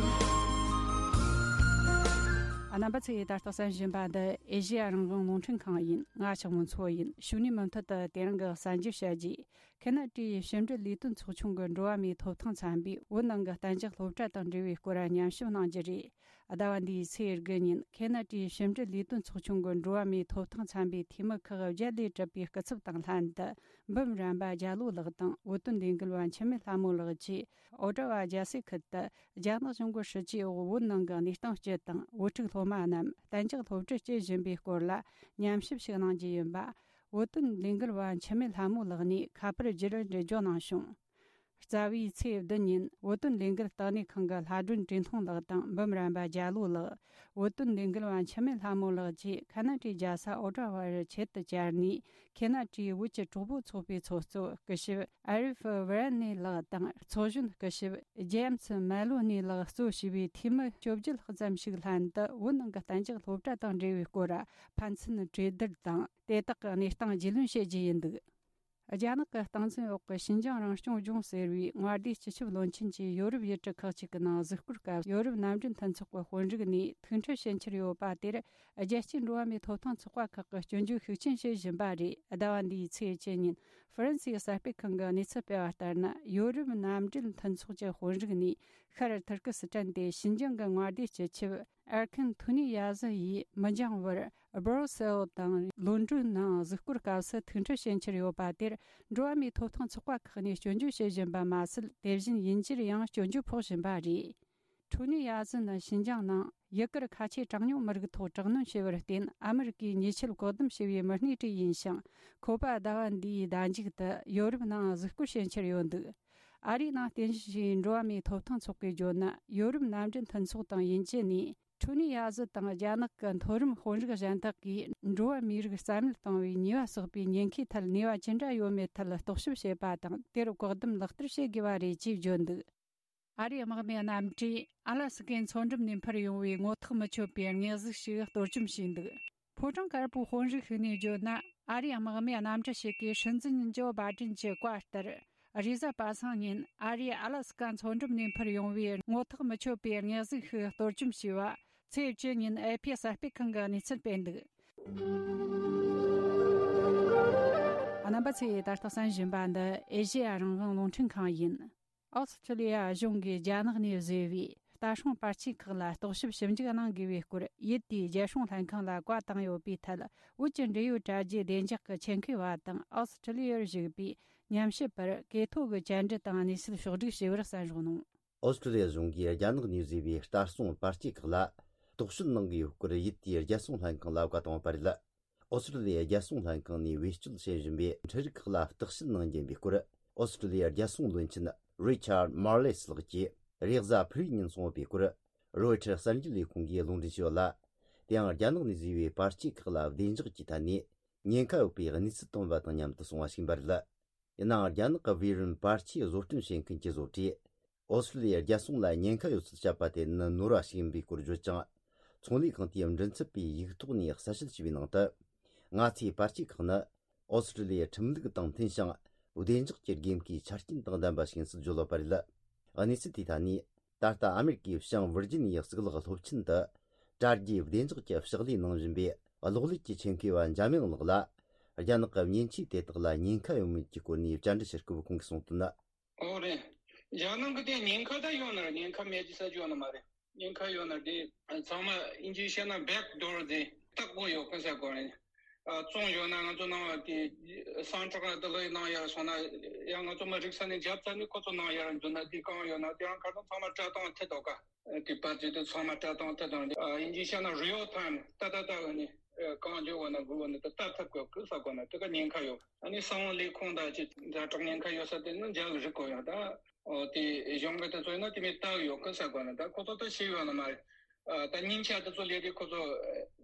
རྣམ་པ་ཚོས་ད་ལྟ་གསན་བཞིན་པ་འདི་ཨེ་ཤ་ཡ་རང་དབང་རླུང་འཕྲིན་ཁང་ཡིན། ང་ཆགས་མོ་མཚོ་ཡིན། ཞུ་ནས་མུ་མཐུད་དུ་དེ་རིང་གི་གསར་འགྱུར་བཤད་རྒྱུ། ཁེ་ན་ཌའི་ཕྱི་འབྲེལ་ལས་དོན་ཚོགས་ཆུང་གི་འགྲོ་བ་མིའི་ཐོབ་ཐང་ཚན་པས་བོད་ནང་གི་གཏན་འཇགས་སློབ་གྲྭ་དང་འབྲེལ་བའི་སྐོར་ཉམས་ཞིབ་གནང་རྒྱུ་རེད། ཟླ་བ་འདིའི་ཚེས་དགུ་ཉིན་ཁེ་ན་ཌའི་ཕྱི་འབྲེལ་ལས་དོན་ཚོགས་ཆུང་གི་འགྲོ་བ་མིའི་ཐོབ་ཐང་ཚན་པའི་འཐུས་མི་ཁག་བརྒྱད་ལས་གྲུབ་པའི་སྐུ་ཚབ་དང་ལྷན་དུ། འབུམ་རམས་པ་རྒྱ་ལོ་ལགས་དང་བོད་དོན་ལས་འགུལ་བ་འཆི་མེད་ལྷ་མོ་ལགས་ཀྱིས་ཨོ་ཊ་ཝ་རྒྱལ་སའི་ཁུལ་དུ་རྒྱ་ནག་གཞུང་གི་སྲིད་ཇུས་འོག་བོད་ནང་གི་གནས་སྟངས་སྤྱི་དང་བོད་ཕྲུག་སློབ་མ་རྣམས་གཏན་འཇགས་སློབ་ཁྲིད་སྤྲད་བཞིན་པའི་སྐོར་ལ་ཉམས་ཞིབ་ཞིག་གནང་རྒྱུ་ཡིན་པ། བོད་དོན་ལས་འགུལ་བ་འཆི་མེད་ལྷ་མོ་ལགས་ནས་ཁ་པར་བརྒྱུད་འགྲེལ་བརྗོད་གནང་བྱུང་། རྩ་བའི་ཚེས་བདུན་ཉིན་བོད་དོན་ལས་འགུལ་ལྟེ་གནས་ཁང་གི་ལྷ་སྒྲོན་བཀྲས་མཐོང་ལགས་དང་འབུམ་རམས་པ་རྒྱ་ལོ་ལགས། བོད་དོན་ལས་འགུལ་བ་འཆི་མེད་ལྷ་མོ་ལགས་ཀྱིས་ཁ་ན་ཌའི་རྒྱལ་ས་ཨོ་ཊ་ཝ་རུ་ཆེད་དུ་བཅར་ནས། ཁེ་ན་ཌའི་བོད་ཀྱི་གྲོགས་པོ་ཚོགས་པའི་ཚོགས་གཙོ་སྐུ་ཞབས་ཨ་རིབ་ཝི་རན་ནེ་ལགས་དང་། ཚོགས་གཞོན་སྐུ་ཞབས་ཇེམ་སི་མེ་ལོ་ནེ་ལགས་གཙོ་བྱས་པའི་འཐུས་མི་བཅོ་བརྒྱད་ཙམ་ཞིག་ལྷན་དུ་བོད་ནང་གི་གཏན་འཇགས་སློབ་གྲྭ་དང་འབྲེལ་བའི་སྐོར་ཕན་ཚུན་གྲོས་བསྡུར་དང་། དེ་དག་གི་གནས་སྟངས་རྒྱུས་ལོན་བྱེད་རྒྱུ་ཡིན་འདུག་རྒྱ་ནག་གི་སྟངས་འཛིན་འོག་གི་ཞིན་ཅང་རང་སྐྱོང་ལྗོངས་ཟེར་བའི་མངའ་སྡེའི་སྤྱི་ཁྱབ་བློན་ཆེན་གྱིས་ཡོ་རོབ་ཡུལ་གྲུ་ཁག་ཅིག་གི་ནང་གཟིགས་སྐོར་སྐབས། ཡོ་རོབ་མནའ་འབྲེལ་མཐུན་ཚོགས་ཀྱི་དཔོན་རིགས་ནས་ཐུགས་འཕྲད་བྱེད་འཆར་ཡོད་པ་དེར། རྒྱལ་སྤྱིའི་འགྲོ་བ་མིའི་ཐོབ་ཐང་ཚོགས་པ་ཁག་གིས་སྐྱོན་བརྗོད་ཤུགས་ཆེན་བྱེད་བཞིན་པ་རེད། ཟླ་བ་འདིའི་ཚེས་བཅུ་ཉིན་ཧྥ་རན་སིའི་གསར་སྤེལ་ཁང་གིས་གནས་ཚུལ་སྤེལ་བ་ལྟར་ན། ཡོ་རོབ་མནའ་འབྲེལ་མཐུན་ཚོགས་ཀྱི་དཔོན་རིགས་ནས་ཤར་ཐུར་ཀི་སི་ཐན་ཏེ་ཞིན་ཅང་གི་མངའ་སྡེའི་སྤྱི་ཁྱབ་ཨར་ཁན་ཐུ་ནི་ཡ་ཟི་ཡིས་མི་འགྱངས་བར་སྦྲོ་སེལ་དང་ལོན་ཌོན་ནང་གཟིགས་སྐོར་སྐབས་སུ་ཐུགས་འཕྲད་བྱེད་འཆར་ཡོད་པ་དེར། འགྲོ་བ་མིའི་ཐོབ་ཐང་ཚོགས་པ་ཁག་ནས་སྐྱོན་བརྗོད་བྱེད་བཞིན་པ་མ་ཟད། དེ་བཞིན་དབྱིན་ཇིར་ཡང་སྐྱོན་བརྗོད་ཕོག་བཞིན་པ་རེད། ཐུ་ནི་ཡ་ཟི་ནི་ཞིན་ཅང་ནང་ཡུ་གུར་ཁ་ཆེ་གྲངས་ཉུང་མི་རིགས་ཐོག་དྲག་གནོན་བྱས་པར་བརྟེན། ཨ་མི་རི་ཀས་ཉེས་ཆད་བཀག་སྡོམ་བྱས་པའི་མི་སྣེ་ཁྲིད་ཡིན་ཞིང་། ཁོ་པ་ཟླ་བ་འདིའི་ཟླ་མཇུག་ཏུ་ཡོ་རོབ་ནང་གཟིགས་སྐོར་བྱེད་འཆར་ཡོད་འདུག་ཨ་རིའི་ནང་རྟེན་གཞི་བྱས་པའི་འགྲོ་བ་མིའི་ཐོབ་ཐང་ཚོགས་པས་བརྗོད་ན། ཡོ་རོབ་མནའ་འབྲེལ་མཐུན་ཚོགས་དང་དབྱིན་ཇི་ནས་ཐུ་ནི་ཡ་ཟི་དང་རྒྱ་ནག་གི་མཐོ་རིམ་དཔོན་རིགས་གཞན་དག་གིས་འགྲོ་བ་མིའི་རིགས་རྩ་མེད་གཏོང་བའི་ཉེས་པ་བསགས་པའི་ཉེན་ཁའི་ཐད་ནུས་པ་ཅི་འདྲ་ཡོད་མེད་ཐད་རྟོག་ཞིབ་བྱེད་པ་དང་། དེར་བཀག་སྡོམ་ལག་བསྟར་བྱེད་དགོས་པ་རེད་ཅེས་བརྗོད་འདུག་ཨ་རིའི་དམག་མི་རྣམ་གྲས་ཨ་ལ་སི་ཀའི་མཚོ་འགྲམ་ནས་འཕུར་ཡོང་བའི་ངོ་ཐག་མི་ཆོད་པའི་དམིགས་གཟུགས་ཤིག་གཏོར་བཅོམ་བྱས་འདུག་ཕོ་བྲང་དཀར་པོའི་དཔོན་རིགས་ཤིག་ནས་བརྗོད་ན། ཨ་རིའི་དམག་མི་རྣམ་གྲས་ཤིག་གིས་སྲིད་འཛིན་ཇོ་བྷའི་ཏིན་གྱི་བཀའ་ལྟར། རེས་གཟའ་པ་སངས་ཉིན་ཨ་རིའི་ཨ་ལ་སི་ཀ་མཚོ་འགྲམ་ནས་འཕུར་ཡོང་བའི་ངོ་ཐག་མི་ཆོད་པའི་དམིགས་གཟུགས་ཤིག་གཏོར་བཅོམ་བྱས་པ། ཚེས་བཅུ་ཉིན་ཨེ་ཕི་གསར་སྤེལ་ཁང་གིས་གནས་ཚུལ་སྤེལ་འདུག་པ་ཚོས་ད་ལྟ་གསན་བཞིན་པ་འདི་ཨེ་ཤེ་ཡ་རང་དབང་རླུང་འཕྲིན་ཁང་ཡིན། ཨོ་སི་ཁྲི་ལི་ཡ་གཞུང་གིས་རྒྱ་ནག་ནས་བཟོས་པའི་ལྟ་སྲུང་པར་ཆས་ཁག་ལ་རྟོག་ཞིབ་ཞིབ་འཇུག་གནང་དགོས་པའི་སྐོར། ཡུལ་དེའི་རྒྱལ་སྲུང་ལྷན་ཁང་ལ་བཀའ་བཏང་ཡོད་པའི་ཐད། བོད་ཀྱི་འབྲེལ་ཡོད་དྲ་རྒྱའི་བདེ་འཇགས་ཀྱི་ཆེད་མཁས་པ་དང་ཨོ་སི་ཁྲི་ལི་ཡར་བཞུགས་པའི་ཉམས་ཞིབ་པར་གོ་ཐོས་ཀྱི་བཅར་འདྲི་དང་གནས་ཚུལ་ཕྱོགས་བསྒྲིགས་བྱས་པར་གསན་རོགས་གནང་། ཨོ་སི་ཁྲི་ལི་ཡ་གཞུང་གིས་རྒྱ་ནག་ནས་བཟོས་པའི་ལྟ་སྲུང་པར་ཆས་ཁག་ལ་རྟོག་དཔྱོད་གནང་གི་ཡོད་སྐོར་ཡུལ་དེའི་རྒྱལ་སྲུང་ལྷན་ཁང་ལ་བཀའ་བཏང་བ་རེད། ཨོ་སི་ཁྲི་ལི་ཡའི་རྒྱལ་སྲུང་ལྷན་ཁང་ནས་བེད་སྤྱོད་བྱེད་བཞིན་པའི་འཕྲུལ་རིག་ཁག་ལ་བརྟག་དཔྱད་གནང་རྒྱུ་ཡིན་པའི་སྐོར། ཨོ་སི་ཁྲི་ལི་ཡའི་རྒྱལ་སྲུང་བློན་ཆེན་རི་ཆར་མར་ལེ་སི་ལགས་ཀྱིས་རེས་གཟའ་ཕུར་བུའི་ཉིན་གསུངས་ཡོད་པའི་སྐོར། རོའི་ཊར་གསར་འགྱུར་ལས་ཁུངས་ཀྱིས་ལུང་འདྲེན་བྱས་ཡོད་ལ། དེའང་རྒྱ་ནག་ནས་བཟོས་པའི་པར་ཆས་ཁག་ལ་བདེ་འཇགས་ཀྱི་ཐད་ནས་ཉེན་ཁ་ཡོད་པའི་གནས་ཚུལ་བཏོན་པ་དང་མཉམ་དུ་སོང་བ་ཞིག་ཡིན་པ་རེད། ཡིན་ནའང་རྒྱ་ནག་གི་བི་རུན་པར་ཆས་བཟོ་སྐྲུན་བྱེད་མཁན་གྱི་བཟོ་གྲྭས། ཨོ་སི་ཀྲི་ལི་ཡའི་རྒྱལ་སྲུང་ལ་ཉེན་ཁ་ཡོད་ཚུལ་བཤད་པ་དེ་ནི་ནོར་བ་ཞིག་ཡིན་པའི་སྐོར་བརྗོད་ཅིང་། ཚོང་ལས་ཁང་དེའི་མགྲིན་ཚབ་པས་ཡིག་ཐོག་ནས་གསལ་བཤད་བྱས་པའི་ནང་དུ། ང་ཚོའི་པར་ཆས་ཁག་ནི་ཨོ་སི་ཀྲི་ལི་ཡའི་ཁྲིམས་ལུགས་དང་མཐུན་ཞིང་། བདེ་འཇགས་ཀྱི་དགོས་མཁོའི་ཆ་རྐྱེན་དང་ལྡན་པ་ཞིག་ཡིན་ཚུལ་བརྗོད་ཡོད་པ་རེད། གནས་ཚུལ་དེའི་ཐད་ནས། ད་ལྟ་ཨ་མེ་རི་ཀའི་བྱང་ཝིར་ཇི་ནི་ཡའི་གཙུག་ལག་སློབ་ཆེན་དུ། དྲ་རྒྱའི་བདེ་འཇགས་ཀྱི་ཕྱག་ལས་གནང་བཞིན་པའི་གློག་ཀླད་ཀྱི་ཆེད་མཁས་པ་འཇམ་དབྱངས་ལགས་ལ། རྒྱ་ནག་གི་མཉེན་ཆས་དེ་དག་ལ་ཉེན་ཁ་ཡོད་མེད་ཀྱི་སྐོར་ནས་བཅར་འདྲི་བྱེད་སྐབས་ཁོང་གིས་གསུངས་དོན། ཨོ་རེད། རྒྱ་ནག་གི་དེ་ཉེན་ཁ་ད་ཡོད་ན་རེད། ཉེན་ཁ་མེད་ཀྱི་ས་ཆ་ཡོད་ན་མ་རེད། ཉེན་ཁ་ཡོད་ན་དེ་ཚང་མ་དབྱིན་ཇིའི་བཤད་ན་བེག་དོར་དེ་ལྟག་པོ་ཡོད་ཁ་ས་གོ་རེད། ཨ་བཙོང་ཡོད་ན་ང་ཚོ་ནང་བ་དེ་སང་ཊྲག་དེ་ལོས་ནང་ཡར་སོང་ན་ཡང་ང་ཚོ་མ་རིག་ས་ནས་རྒྱབ་ཚ་ནས་ཁོ་ཚོ་ནང་ཡར་འཛུལ་ན་དེ་གང་ཡོད་ན་དེ་རང་ཁ་སང་ཚང་མ་སྤྲད་སྟངས་ཐད་དོ་ཀ། དེ་པར་ཆས་དེ་ཚང་མ་སྤྲད་སྟངས་ཐད་དང་དབྱིན་ཇིའི་བཤད་ན་རི་ཨལ་ཊའིམ་ཏག་ཏག་ཏག་ནས་གང་བྱུང་བ་ན་དགོས་བ་ན་དེ་ལྟ་ཐུབ་དགོས་ཀི་ས་གོ་ན་དེ་ག་ཉེན་ཁ་ཡོད། ཨ་ནི་གསང་བ་ལས་ཁུངས་དང་ཅི་ཛ་དྲག་ཉེན་ཁ་ཡོད་ས་དེ་ནི་འཇལ་རིག་གོ་ཡོད་ད། ཨོ་དེ་གཞུང་གི་དེ་ཚོ་ཡིན་ན་དེ་མི་ལྟ་ཡོད་ཀི་ས་གོ་ན་ད་ཁོ་ཚོ་ད་ཤེས་ཡོད་ན་མ་རེད། ད་སྙིང་ཆ་དེ་ཚོ་ལས་དེ་ཁོ་ཚོ་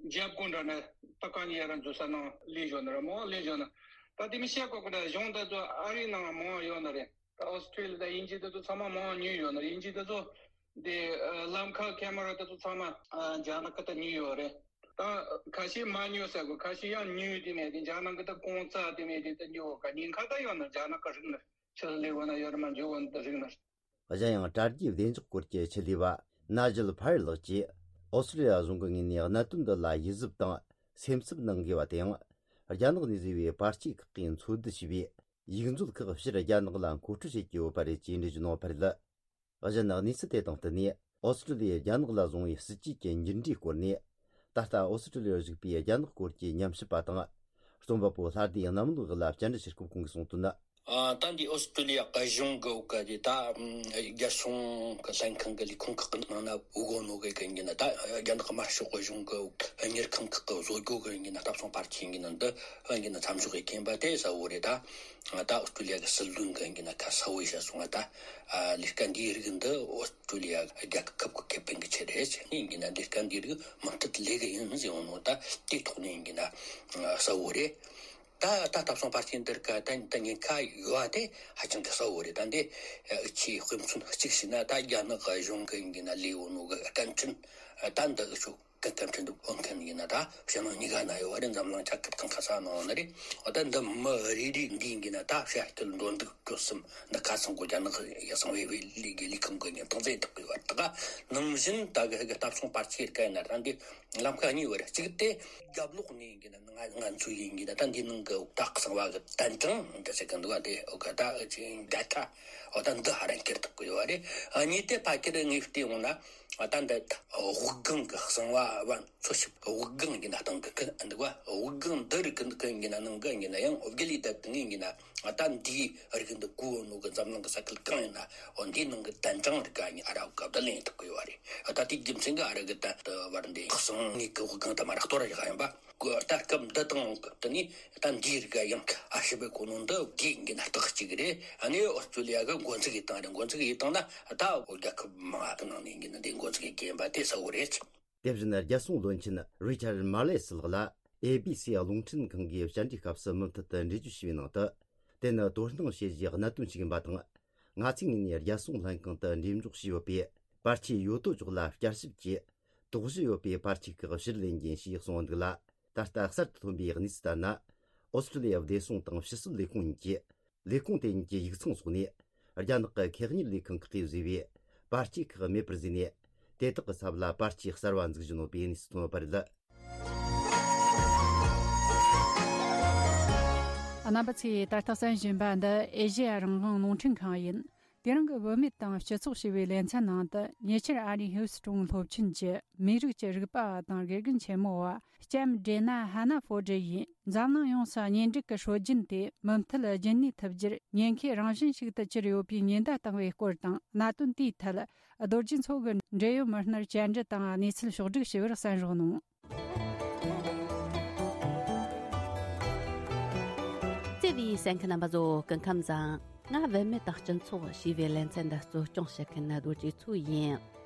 འཇབ་དགོས་འདྲ་ན་ད་གང་ཡིན་ཡ་ར་འཛུལ་ས་ནང་ལས་ཞོན་ན་ར་མོ་ལས་ཞོན་ན་ད་དེ་མི་བཤད་གོ་གི་འདྲ། གཞུང་དེ་ཚོ་ཨ་རིའི་ནང་མང་ཡོད་ན་རེད། ད་ཨོ་སི་ཀྲི་ལི་ཡ་དང་དབྱིན་ཇི་དེ་ཚོ་ཚང་མ་མང་ཉུལ་ཡོད་ན་རེད། དབྱིན་ཇི་དེ་ཚོ་དེ་ལམ་ཁ་ཁེ་མ་ར་དེ་ཚོ་ཚང་མ་རྒྱ་ནག་གི་ད་ཉུལ་ཡོད་རེད། ད་ཁ་ཤས་མ་ཉུལ་ས་གོ་ཁ་ཤས་ཡང་ཉུལ་དེ་ནས་དེ་རྒྱ་ནག་གི་ད་གོང་ཚ་དེ་ནས་དེ་ད་ཉུལ་ག་ཉེན་ཁ་ད་ཡོད་ན་རྒྱ་ནག་གི་རིག་ན་ཆི་ལས་གོ་ན་ཡོད་ར་མ་འཇུག་གོ་ན་ད་རིག་ན། གཞན་ཡང་དྲ་རྒྱའི་བདེ་འཇགས་སྐོར་གྱི་ཆེད་ལས་པ་ན་ཇལ་ཕ་ཡར་ལགས་ཀྱིས་ཨོ་སི་ཀྲི་ལི་ཡ་གཞུང་གི་ངོས་ནས་གནད་དོན་འདི་ལ་ཡིད་གཟབ་དང་སེམས་འཚབ་གནང་དགོས་པ་དེའང་རྒྱ་ནག་ནས་བཟོས་པའི་པར་ཆས་ཁག་གིས་འཚོལ་བསྡུ་བྱས་པའི་ཡིག་མཛོད་ཁག་ཕྱིར་རྒྱ་ནག་ལ་མཁོ་སྤྲོད་བྱེད་ཀྱི་ཡོད་པ་རེད་ཅེས་འགྲེལ་བརྗོད་གནང་བ་རེད། གཞན་གནས་ཚུལ་དེ་དང་བསྟུན་ནས་ཨོ་སི་ཀྲི་ལི་ཡས་རྒྱ་ནག་ལ་བཟུང་བའི་སྲིད་ཇུས་ཀྱི་འགྱུར་འགྲོས་སྐོར་ནས་ད་ལྟ་ཨོ་སི་ཀྲི་ལི་ཡར་བཞུགས་པའི་རྒྱ་ནག་སྐོར་གྱི་ཉམས་ཞིབ་པ་དང་རྩོམ་པ་པོ་ལྷ་སྡེ་གནམ་ལོ་ལགས་ལ་བཅར་འདྲི་བྱེད་སྐབས་ཁོང་གིས་གསུངས་དོན། ཨ། ད་འདི་ཨོ་སི་ཀྲི་ལི་ཡ་གཞུང་གི་འོག་གི་དེ་ད་རྒྱལ་སྲུང་གི་ལྷན་ཁང་གི་ལས་ཁུངས་ཁག་གི་ནང་ན་འུ་གོ་ནོ་གི་གི་ཡིན་ན་ད་རྒྱ་ནག་དམར་ཤོག་གི་གཞུང་གི་འོག་གཉེར་ཁང་ཁག་གི་བཟོ་སྒོ་གི་ཡིན་ན་ལྟ་སྲུང་པར་ཆས་ཡིན་ན་འདི་ཡིན་ན་མཚམས་འཇོག་གི་མཁན་པ་དེ་གསལ་བོ་རེད། ད་ད་ཨོ་སི་ཀྲི་ལི་ཡ་གི་སྲིད་བློན་གི་ཡིན་ན་ཁ་གསལ་བོ་བཤད་སོང་ང་ད་ལས་ཀ་འདིའི་རིགས་འདི་ཨོ་སི་ཀྲི་ལི་ཡ་རྒྱལ་ཁབ་ཀྱི་ཁེ་ཕན་གྱི་ཆེད་རེད། ཡིན་གྱི་ན་ལས་ཀ་འདིའི་རིགས་མུ་མཐུད་ལས་ཀ་ཡིན་ཟེར་འོང་ནོ་ད་དེའི་ཐོག་ནས་ཡིན་གྱི་ན་གསལ་བོ་རེད། ད་ད་ལྟ་སོང་པར་ཆས་འདིར་ཀ་ད་ད་ཉེན་ཁ་ཡོད་དེ་ཧ་ཅང་གི་གསལ་བོ་རེད། ད་འདི་ཨུ་ཆི་དཔེ་མཚོན་གཅིག་བྱས་ན་ད་རྒྱ་ནག་གཞུང་གི་ཡིན་གྱི་ན་ལས་འོང་ནོ་གི་སྐད་འཕྲིན་ད་འདི་ཨུ་ཆུ་གི་སྐད་འཕྲིན་དུ་ཕོན་མཁན་ཡིན་ན་ད་ཕྱི་ནང་གཉིས་ཀ་ན་ཡོད་བ་རེད། འཛམ་གླིང་ཆ་ཁབ་གང་ག་ས་ནང་ན་རེད། འོ་ད་འདི་མི་རེ་རེ་འདི་ཡིན་གྱི་ན་ད་བཤད་སྤྲོད་འགྲོ་འདུག་སྤྲོ་གསུམ་འདི་ཁ་སང་གོ་རྒྱ་ནག་གི་གསང་བའི་ལས་ཀྱི་ལས་ཁང་གི་ཉིན་ཐང་ཚེ་ཐག་གི་བར་ད་ག་ནང་བཞིན་ད་གི་གི་ལྟ་སྲུང་པར་ཆས་རིགས་ཡིན་ན་ད་འདི་ལམ་ཁ་གཉིས་བར་གཅིག་དེ་རྒྱབ་ལོགས་ནས་ཡིན་གྱི་ན་ང་ང་ཚོ་ཡིན་གྱི་ན་ད་འདི་ནང་གི་ད་གསང་བ་གི་དན་གྲངས་འདི་ཟེར་གི་འདུག་བ་དེ་འོ་ག་ད་ཅིག་འདྲ་ཁ་འོ་ད་འདི་ཧ་རན་ཁྱེར་ཐག་གི་ཡོད་བ་རེད། གཉིས་དེ་ཕ་ཁྱེར་ངས་བལྟས་འོང་ན། ད་འདི་དབུགས་ལྒང་གི་གསང་བ་བ་འཚོལ་ཞིབ་དབུགས་ལྒང་ཡིན་ན་སྟེང་གི་ཀི་འདུག་བ། དབུགས་ལྒང་འདི་རིགས་ཀི་ཀི་ཡིན་ན་ནང་གི་ཡིན་ན་ཡང་དབུགས་ལས་བཏབ་ཀི་ཡིན་ན་ད་འདིའི་རིགས་འདི་གོ་ནོ་གི་འཛམ་གླིང་གི་ས་ཁུལ་གང་ཡིན་ན་འོ་འདིའི་ནང་གི་དན་གྲངས་རིགས་ཀ་ཡིན་ཨ་ར་བ་གབ་ད་ལེན་ཐུབ་གི་ཡོད་རེད། ད་དེའི་རྒྱུ་མཚན་གི་ཨ་ར་གི་ད་བར་འདི་གསང་ངེས་ཀྱི་དབུགས་ལྒང་དུ་མ་རག་གཏོར་ཡག་ཡིན་པ། ད་སྐབས་འདི་དང་སྐབས་དེ་ནས་ད་འདིའི་རིགས་ཡང་ཨ་ཞིབ་པའི་གོ་ནོ་འདི་དགེ་འདུན་རྟགས་གཅིག་རེད། ཨ་ནི་ཨོ་སི་ཀྲི་ལི་ཡ་གི་འགོ་འཛུགས་ཡི་སྟངས་རེད། འགོ་འཛུགས་ཡི་སྟངས་ན་ད་རྒྱལ་ཁབ་མང་གི་ནང་ནས་འདི་འགོ་འཛུགས་ཡི་རྒན་པ་དེ་གསལ་བོ་རེད། དེ་བཞིན་རྒྱལ་སྲུང་བློན་ཆེན་རི་ཆར་མར་ལེ་སི་ལགས་ལ་ཨེ་བི་སི་རླུང་འཕྲིན་ཁང་གིས་བཅར་འདྲིའི་སྐབས་སུ་མུ་མཐུད་དུ་འགྲེལ་བརྗོད་བྱས་པའི་ནང་དུ། དེ་ནི་དོ་སྣང་བྱེད་རྒྱུའི་གནད་དོན་ཞིག་ཡིན་པ་དང་། ང་ཚོའི་ངོས་ནས་རྒྱལ་སྲུང་ལྷན་ཁང་དུ་འགྲེམས་འཇོག་བྱས་ཡོད་པའི་པར་ཆས་ཡོད་དོ་ཅོག་ལ་བསྐྱར་ཞིབ་ཀྱིས། དོགས་གཞི་ཡོད་པའི་པར་ཆས་ཁག་ཕྱིར་ལེན་རྒྱུ་ཡིན་ཞེས་གསུངས་འདུག་ལ། ད་ལྟ་གསར་དུ་ཐོན་པའི་གནས་ཚུལ་ལྟར་ན། ཨོ་སི་ཀྲི་ལི་ཡ་བདེ་སྲུང་དང་ཕྱི་སྲིད་ལས་ཁུངས་གཉིས་ཀྱིས་ལས་ཁུངས་དེ་གཉིས་ཀྱི་ཡིག་ཚང་སོགས་ནས་རྒྱ་ནག་གི་ཁེ་གཉེར་ལས་ཁང་ཁག་གིས་བཟོས་པའི་པར་ཆས་ཁག་མེད་པར་བཟོས་ནས། དེ་དག་གི་ཚབ་ལ་པར་ཆས་གསར་བ་འཛུགས་བཞིན་ཡོད་པའི་གནས་ཚུལ་ཐོན་ཡོད་པ་རེད། རྣམ་པ་ཚོས་ད་ལྟ་གསན་བཞིན་པ་འདི་ཨེ་ཤེ་ཡ་རང་དབང་རླུང་འཕྲིན་ཁང་ཡིན། དེ་རིང་གི་བུད་མེད་དང་སྤྱི་ཚོགས་ཞེས་པའི་ལེ་ཚན་ནང་དུ། ཉེ་ཆར་ཨ་རིའི་ཧིའུ་སི་ཀྲོན་སློབ་ཆེན་གྱི་མིའི་རིགས་ཀྱི་རིག་པ་བ་དང་དགེ་རྒན་ཆེན་མོ་བ་ལྕམ་ཌེ་ན་ཧ་ན་ཧྥོར་ཌི་ཡིས། འཛམ་གླིང་ཡོངས་སུ་གཉེན་སྒྲིག་གི་སྲོལ་རྒྱུན་དེ་མུ་མཐུད་རྒྱུན་གནས་ཐུབ་རྒྱུར་ཉེན་ཁའི་རང་བཞིན་ཞིག་ཏུ་གྱུར་ཡོད་པའི་ཉེན་བརྡ་བཏང་བའི་སྐོར་དང་། གནད་དོན་དེའི་ཐད་རྡོ་རྗེ་མཚོ་གིས་འབྲེལ་ཡོད་མི་སྣར་བཅར་འདྲི་དང་གནས་ཚུལ་ཕྱོགས་བསྒྲིགས་ཞུ་བར་གསན་རོགས་གནང་། བརྩེ་བའི་གསན་མཁན་རྣམ་པ་ཚོ། སྐུ་ཁམས་བཟང་། ང་བུད་མེད་དང་སྤྱི་ཚོགས་ཞེས་པའི་ལེ་ཚན་འདི་གཙོ་སྐྱོང་བྱེད་མཁན་རྡོ་རྗེ་མཚོ་ཡིན།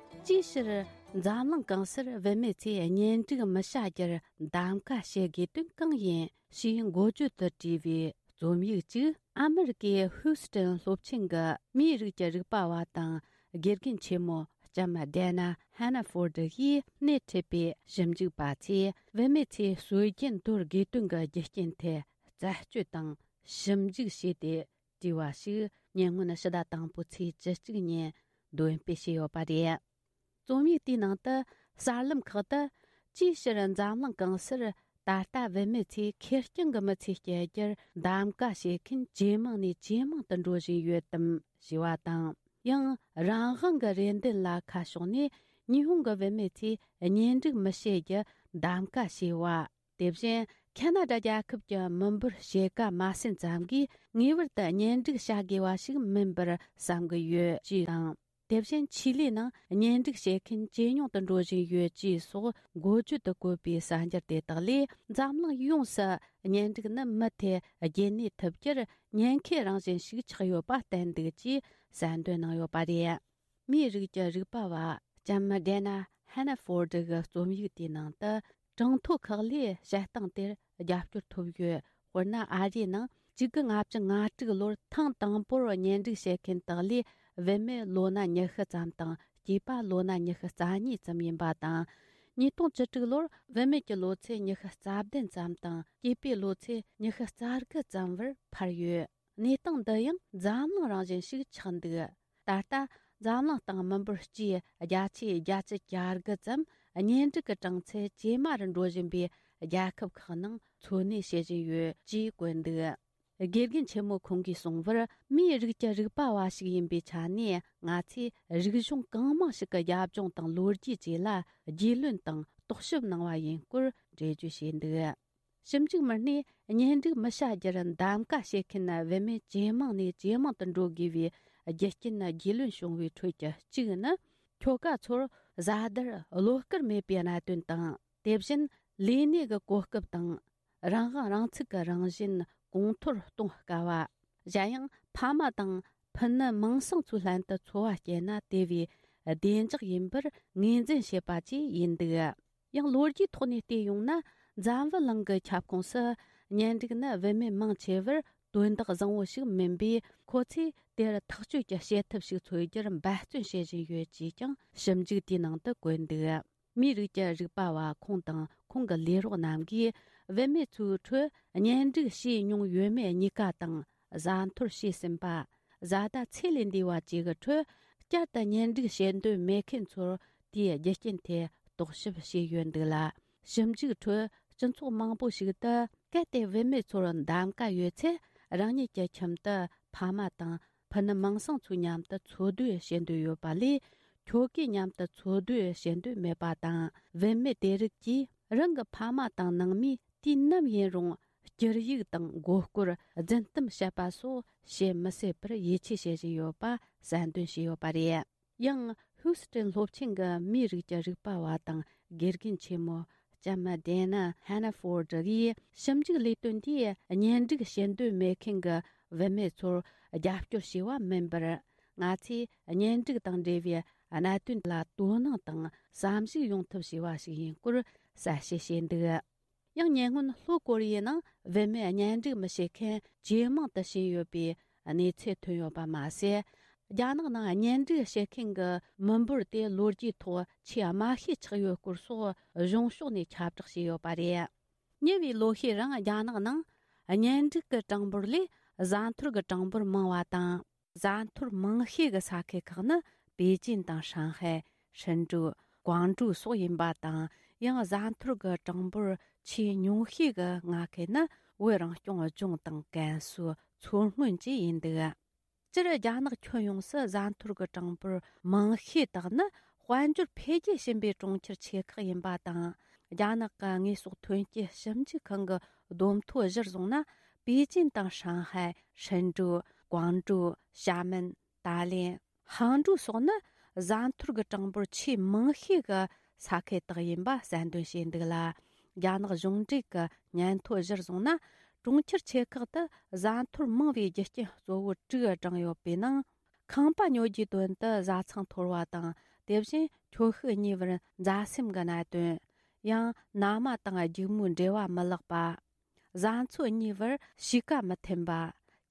ཅིའི་ཕྱིར་འཛམ་གླིང་གང་སར་བུད་མེད་ཚོས་གཉེན་སྒྲིག་མི་བྱ་རྒྱུར་གདམ་ག་བྱེད་དགོས་དོན་གང་ཡིན་ཞེས་འགོ་བརྗོད་དུ་བྲིས་པའི་རྩོམ་ཡིག་ཅིག་ཨ་མི་རི་ཀའི་ཧུའུ་སི་ཀྲན་སློབ་ཆེན་གྱི་མིའི་རིགས་ཀྱི་རིག་པ་བ་དང་དགེ་རྒན་ཆེན་མོ་ལྕམ་ཌེ་ན་ཧན་ན་ཧྥོར་ཌི་ཡིས་སྣེ་ཁྲིད་པའི་ཞིབ་འཇུག་པ་ཚོས། བུད་མེད་ཚོས་སྲོལ་རྒྱུན་དོར་དགོས་དོན་གྱི་རྒྱུ་རྐྱེན་ཐད་རྩད་གཅོད་དང་ཞིབ་འཇུག་བྱས་ཏེ་བྲིས་པ་ཞིག་ཉེ་སྔོན་ཕྱི་ཟླ་དང་པོའི་ཚེས་བཅུ་གཅིག་ཉིན་འདོན་སྤེལ་བྱས་ཡོད་པ་རེད། རྩོམ་ཡིག་དེའི་ནང་དུ་གསར་ལམ་ཁག་ཏུ། ཅིའི་ཕྱིར་འཛམ་གླིང་གང་སར་ད་ལྟ་བུད་མེད་ཚོས་ཁེར་རྐྱང་གི་མི་ཚེ་སྐྱེལ་རྒྱུར་གདམ་ག་བྱེད་མཁན་ཇེ་མང་ནས་ཇེ་མང་དུ་འགྲོ་བཞིན་ཡོད་དམ་ཞེས་པ་དང་། ཡང་རང་དབང་གི་རེ་འདུན་ལ་ཁ་ཕྱོགས་ནས་ཉི་ཧོང་གི་བུད་མེད་ཚོས་གཉེན་སྒྲིག་མི་བྱེད་རྒྱུ་གདམ་ག་བྱས་པ། དེ་བཞིན་ཁ་ན་ཌ་རྒྱལ་ཁབ་ཀྱི་མི་འབོར་ཕྱེད་ཀ་མ་ཟིན་ཙམ་གྱིས་ངེས་པར་དུ་གཉེན་སྒྲིག་བྱ་དགོས་པ་ཞིག་མིན་པར་བསམ་གྱི་ཡོད་ཅེས་དང་། དེ་བཞིན་ཆི་ལི་ནང་གཉེན་སྒྲིག་བྱེད་མཁན་ཇེ་ཉུང་དུ་འགྲོ་བཞིན་ཡོད་ཅེས་སོགས་འགོ་བརྗོད་དུ་བཀོད་པའི་གསར་འགྱུར་དེ་དག་ལས། འཛམ་གླིང་ཡོངས་སུ་གཉེན་སྒྲིག་ནི་མུ་མཐུད་རྒྱུན་གནས་ཐུབ་རྒྱུར་ཉེན་ཁའི་རང་བཞིན་ཞིག་ཆགས་ཡོད་པ་བསྟན་འདུག་ཅེས་གསལ་འདོན་གནང་ཡོད་པ་རེད། མིའི་རིགས་ཀྱི་རིག་པ་བ་ལྕམ་ཌེ་ན་ཧན་ན་ཧྥོར་ཌི་གི་རྩོམ་ཡིག་དེའི་ནང་དུ། གྲངས་ཐོ་ཁག་ལས་བཤད་སྟངས་དེར་རྒྱབ་སྐྱོར་ཐོབ་ཡོད། དཔེར་ན། ཨ་རིའི་ནང་གཅིག་དགུ་ལྔ་བཅུ་ང་དྲུག་ལོར་ཐེངས་དང་པོར་གཉེན་སྒྲིག་བྱེད་མཁན་དག་ལས་བུད་མེད་ལོ་ན་ཉི་ཤུ་ཙམ་དང་སྐྱེས་པ་ལོ་ན་ཉི་ཤུ་རྩ་གཉིས་ཙམ་ཡིན་པ་དང་། ཉིས་སྟོང་བཅུ་དྲུག་ལོར་བུད་མེད་ཀྱི་ལོ་ཚད་ཉི་ཤུ་རྩ་བདུན་ཙམ་དང་སྐྱེས་པའི་ལོ་ཚད་ཉི་ཤུ་རྩ་དགུ་ཙམ་བར་འཕར་ཡོད། གནས་སྟངས་འདི་ཡང་འཛམ་གླིང་རང་བཞིན་ཞིག་ཆགས་འདུག་ད་ལྟ་འཛམ་གླིང་སྟེང་མི་འབོར་སྤྱིའི་བརྒྱ་ཆའི་བརྒྱད་ཅུ་གྱ་དགུ་ཙམ་གཉེན་སྒྲིག་གི་གྲངས་ཚད་ཇེ་དམའ་རུ་འགྲོ་བཞིན་པའི་རྒྱལ་ཁབ་ཁག་ནང་འཚོ་གནས་བྱེད་བཞིན་ཡོད་ཅེས་བཀོད་འདུག་དགེ་རྒན་ཆེན་མོ་ཁོང་གིས་གསུངས་པར། མིའི་རིགས་ཀྱི་རིག་པ་བ་ཞིག་ཡིན་པའི་ཆ་ནས། ང་ཚོས་རིག་གཞུང་གང་མང་ཞིག་གི་རྒྱབ་ལྗོངས་དང་ལོ་རྒྱུས་བཅས་ལ་རྒྱུས་ལོན་དང་རྟོག་ཞིབ་གནང་བ་ཡིན་སྐོར་འགྲེལ་བརྗོད་བྱས་འདུག་ཞིབ་འཇུག་མི་སྣས་གཉེན་སྒྲིག་མི་བྱ་རྒྱུར་གདམ་ག་བྱེད་མཁན་བུད་མེད་ཇེ་མང་ནས་ཇེ་མང་དུ་འགྲོ་དགོས་པའི་རྒྱུ་རྐྱེན་རྒྱུས་ལོན་བྱུང་བའི་ཁྲོད་ཀྱི་གཅིག་ནི། ཁྱོ་ག་ཚོར་བཟའ་ཟླར་བློ་དཀར་མེད་པའི་གནད་དོན་དང་། དེ་བཞིན་ལས་གནས་ཀྱི་གོ་སྐབས་དང་། རང་དབང་རང་ཚུགས་ཀྱི་རང་བཞིན་གོང་མཐོར་གཏོང་དཀའ་བ། གཞན་ཡང་ཕ་མ་དང་ཕུ་ནུ་མིང་སྲིང་ཚོའི་ལྷན་དུ་འཚོ་བ་སྐྱེལ་ན་དེ་བས་བདེ་འཇགས་ཡིན་པར་ངོས་འཛིན་བྱེད་པ་བཅས་ཡིན་འདུག་ཡང་ལོ་རྒྱུས་ཐོག་ནས་བལྟས་ཡོང་ན། འཛམ་བུ་གླིང་གི་ཁྱབ་ཁོངས་སུ་གཉེན་སྒྲིག་ནི་བུད་མེད་མང་ཆེ་བར་དོན་དག་བཟང་བོ་ཞིག་མིན་པས། ཁོ་ཚོས་དེར་ཐག་གཅོད་ཀྱི་བྱེད་ཐབས་ཤིག་འཚོལ་རྒྱུར་འབད་བརྩོན་བྱེད་བཞིན་ཡོད་ཅེས་ཀྱང་ཞིབ་འཇུག་དེའི་ནང་དུ་བཀོད་འདུག་མིའི་རིགས་ཀྱི་རིག་པ་བ་ཁོང་དང་ཁོང་གི་ལས་རོགས་རྣམས་ཀྱིས། བུད་མེད་ཚོའི་ཁྲོད་གཉེན་སྒྲིག་བྱས་མྱོང་ཡོད་མེད་གཉིས་ཀ་དང་། བཟའ་འཐོར་བྱས་ཟིན་པ། བཟའ་ཟླ་ཚེ་ལས་འདས་པ་བཅས་ཀྱི་ཁྲོད་བསྐྱར་དུ་གཉེན་སྒྲིག་བྱེད་འདོད་མེད་མཁན་ཚོར་དེའི་རྒྱུ་རྐྱེན་ཐད་རྟོག་ཞིབ་བྱས་ཡོད་འདུག་ལ། ཞིབ་འཇུག་ཁྲོད་སྤྱི་ཚོགས་མང་པོ་ཞིག་ཏུ། གལ་ཏེ་བུད་མེད་ཚོར་གདམ་ག་ཡོད་ཚེ། རང་ཉིད་ཀྱི་ཁྱིམ་དུ་ཕ་མ་དང་ཕུ་ནུ་མིང་སྲིང་ཚོའི་མཉམ་དུ་འཚོ་སྡོད་བྱེད་འདོད་ཡོད་པ་ལས། ཁྱོ་གའི་མཉམ་དུ་འཚོ་སྡོད་བྱེད་འདོད་མེད་པ་དང་། བུད་མེད་དེ་རིགས་ཀྱིས་རང་གི་ཕ་མ་དང་ནང་མིས་དུས་ནམ་ཡིན་རུང་། སྐྱུར་ཡིག་དང་མགོ་སྐོར། རྫུན་གཏམ་བཤད་པ་སོགས་བྱེད་མི་སྲིད་པར་ཡིད་ཆེས་བྱེད་བཞིན་ཡོད་པ་གསལ་འདོན་བྱས་ཡོད་པ་རེད། ཡང་ཧུའུ་སི་ཀྲན་སློབ་ཆེན་གྱི་མིའི་རིགས་ཀྱི་རིག་པ་བ་དང་དགེ་རྒན་ཆེན་མོ་ལྕམ་ཌེ་ན་ཧན་ན་ཧྥོར་ཌི་ཡིས། ཞིབ་འཇུག་ལས་དོན་དེས་གཉེན་སྒྲིག་བྱེད་འདོད་མེད་མཁན་གྱི་བུད་མེད་ཚོར་རྒྱབ་སྐྱོར་བྱས་པ་མིན་པར། ང་ཚོས་གཉེན་སྒྲིག་དང་འབྲེལ་བའི་གནད་དོན་ལ་དོ་སྣང་དང་བསམ་གཞིག་ཡོང་ཐབས་བྱས་པ་ཞིག་ཡིན་སྐོར་གསལ་བཤད་བྱས་འདུག་ཡང་ཉེ་སྔོན་ལྷོ་ཀོ་རི་ཡའི་ནང་བུད་མེད་གཉེན་སྒྲིག་མི་བྱེད་མཁན་ཇེ་མང་དུ་ཕྱིན་ཡོད་པའི་གནས་ཚུལ་ཐོན་ཡོད་པ་མ་ཟད། རྒྱ་ནག་ནང་གཉེན་སྒྲིག་བྱེད་མཁན་གྱི་མི་འབོར་དེ་ལོ་རྒྱུས་ཐོག་ཆེས་དམའ་ཤོས་ཆགས་ཡོད་སྐོར་སོགས་གཞུང་ཕྱོགས་ནས་ཁྱབ་བསྒྲགས་བྱས་ཡོད་པ་རེད། ཉེ་བའི་ལོ་ཤས་རིང་རྒྱ་ནག་ནང་གཉེན་སྒྲིག་གི་གྲངས་འབོར་ལས་བཟའ་འཐོར་གྱི་གྲངས་འབོར་མང་བ་དང་། བཟའ་འཐོར་མང་ཤོས་ཀྱི་ས་ཁུལ་ཁག་ནི་པེ་ཅིན་དང་ཧྲང་ཧའེ། ཧྲིན་ཀྲུའུ། ཀོང་ཀྲོའུ་སོགས་ཡིན་པ་དང་། ཡང་བཟའ་འཐོར་གྱི་གྲངས་འབོར་ཆེས་ཉུང་ཤོས་ཀྱི་མངའ་ཁུལ་ནི་ བོད་རང་སྐྱོང་ལྗོངས་དང་ཀན་སུའུ་མཚོ་སྔོན་བཅས་ཡིན་འདུག་སྤྱིར་རྒྱ་ནག་ཁྱོན་ཡོངས་སུ་བཟའ་འཐོར་གྱི་གྲངས་འབོར་མང་ཤོས་དག་ནི་དཔལ་འབྱོར་འཕེལ་རྒྱས་ཕྱིན་པའི་གྲོང་ཁྱེར་ཆེ་ཁག་ཡིན་པ་དང་། རྒྱ་ནག་གི་དངོས་ཟོག་ཐོན་སྐྱེད་ཞིབ་འཇུག་ཁང་གི་བསྡོམས་ཐོ་གཞིར་བཟུང་ན། པེ་ཅིན་དང་ཧྲང་ཧའེ། ཧྲིན་ཀྲུའུ། ཀོང་ཀྲོའུ། ཞྭ་མེན། ཏཱ་ལེན། ཧང་ཀྲོའུ་སོགས་ནི་བཟའ་འཐོར་གྱི་གྲངས་འབོར་ཆེས་མང་ཤོས་ཀྱི་ས་ཁུལ་དག་ཡིན་པ་གསལ་འདོན་བྱས་འདུག་ལ། རྒྱ་ནག་གཞུང་འབྲེལ་གྱི་སྙན་ཐོ་གཞིར་བཟུང་ན། གྲོང་ཁྱེར་ཆེ་ཁག་ཏུ་བཟའ་འཐོར་མང་བའི་རྒྱུ་རྐྱེན་གཙོ་བོ་དྲུག་བགྲངས་ཡོད་པའི་ནང་། ཁང་པ་ཉོ་རྒྱུའི་དོན་དུ་བཟའ་ཚང་འཐོར་བ་དང་། དེ་བཞིན་ཁྱོ་ཤུག་གཉིས་བར་མཛའ་སེམས་ཀྱི་གནད་དོན། ཡང་མནའ་མ་དང་སྒྱུག་མོའི་འབྲེལ་བ་མི་ལེགས་པ། བཟའ་འཚོ་གཉིས་བར་གཤིས་ཀ་མི་མཐུན་པ།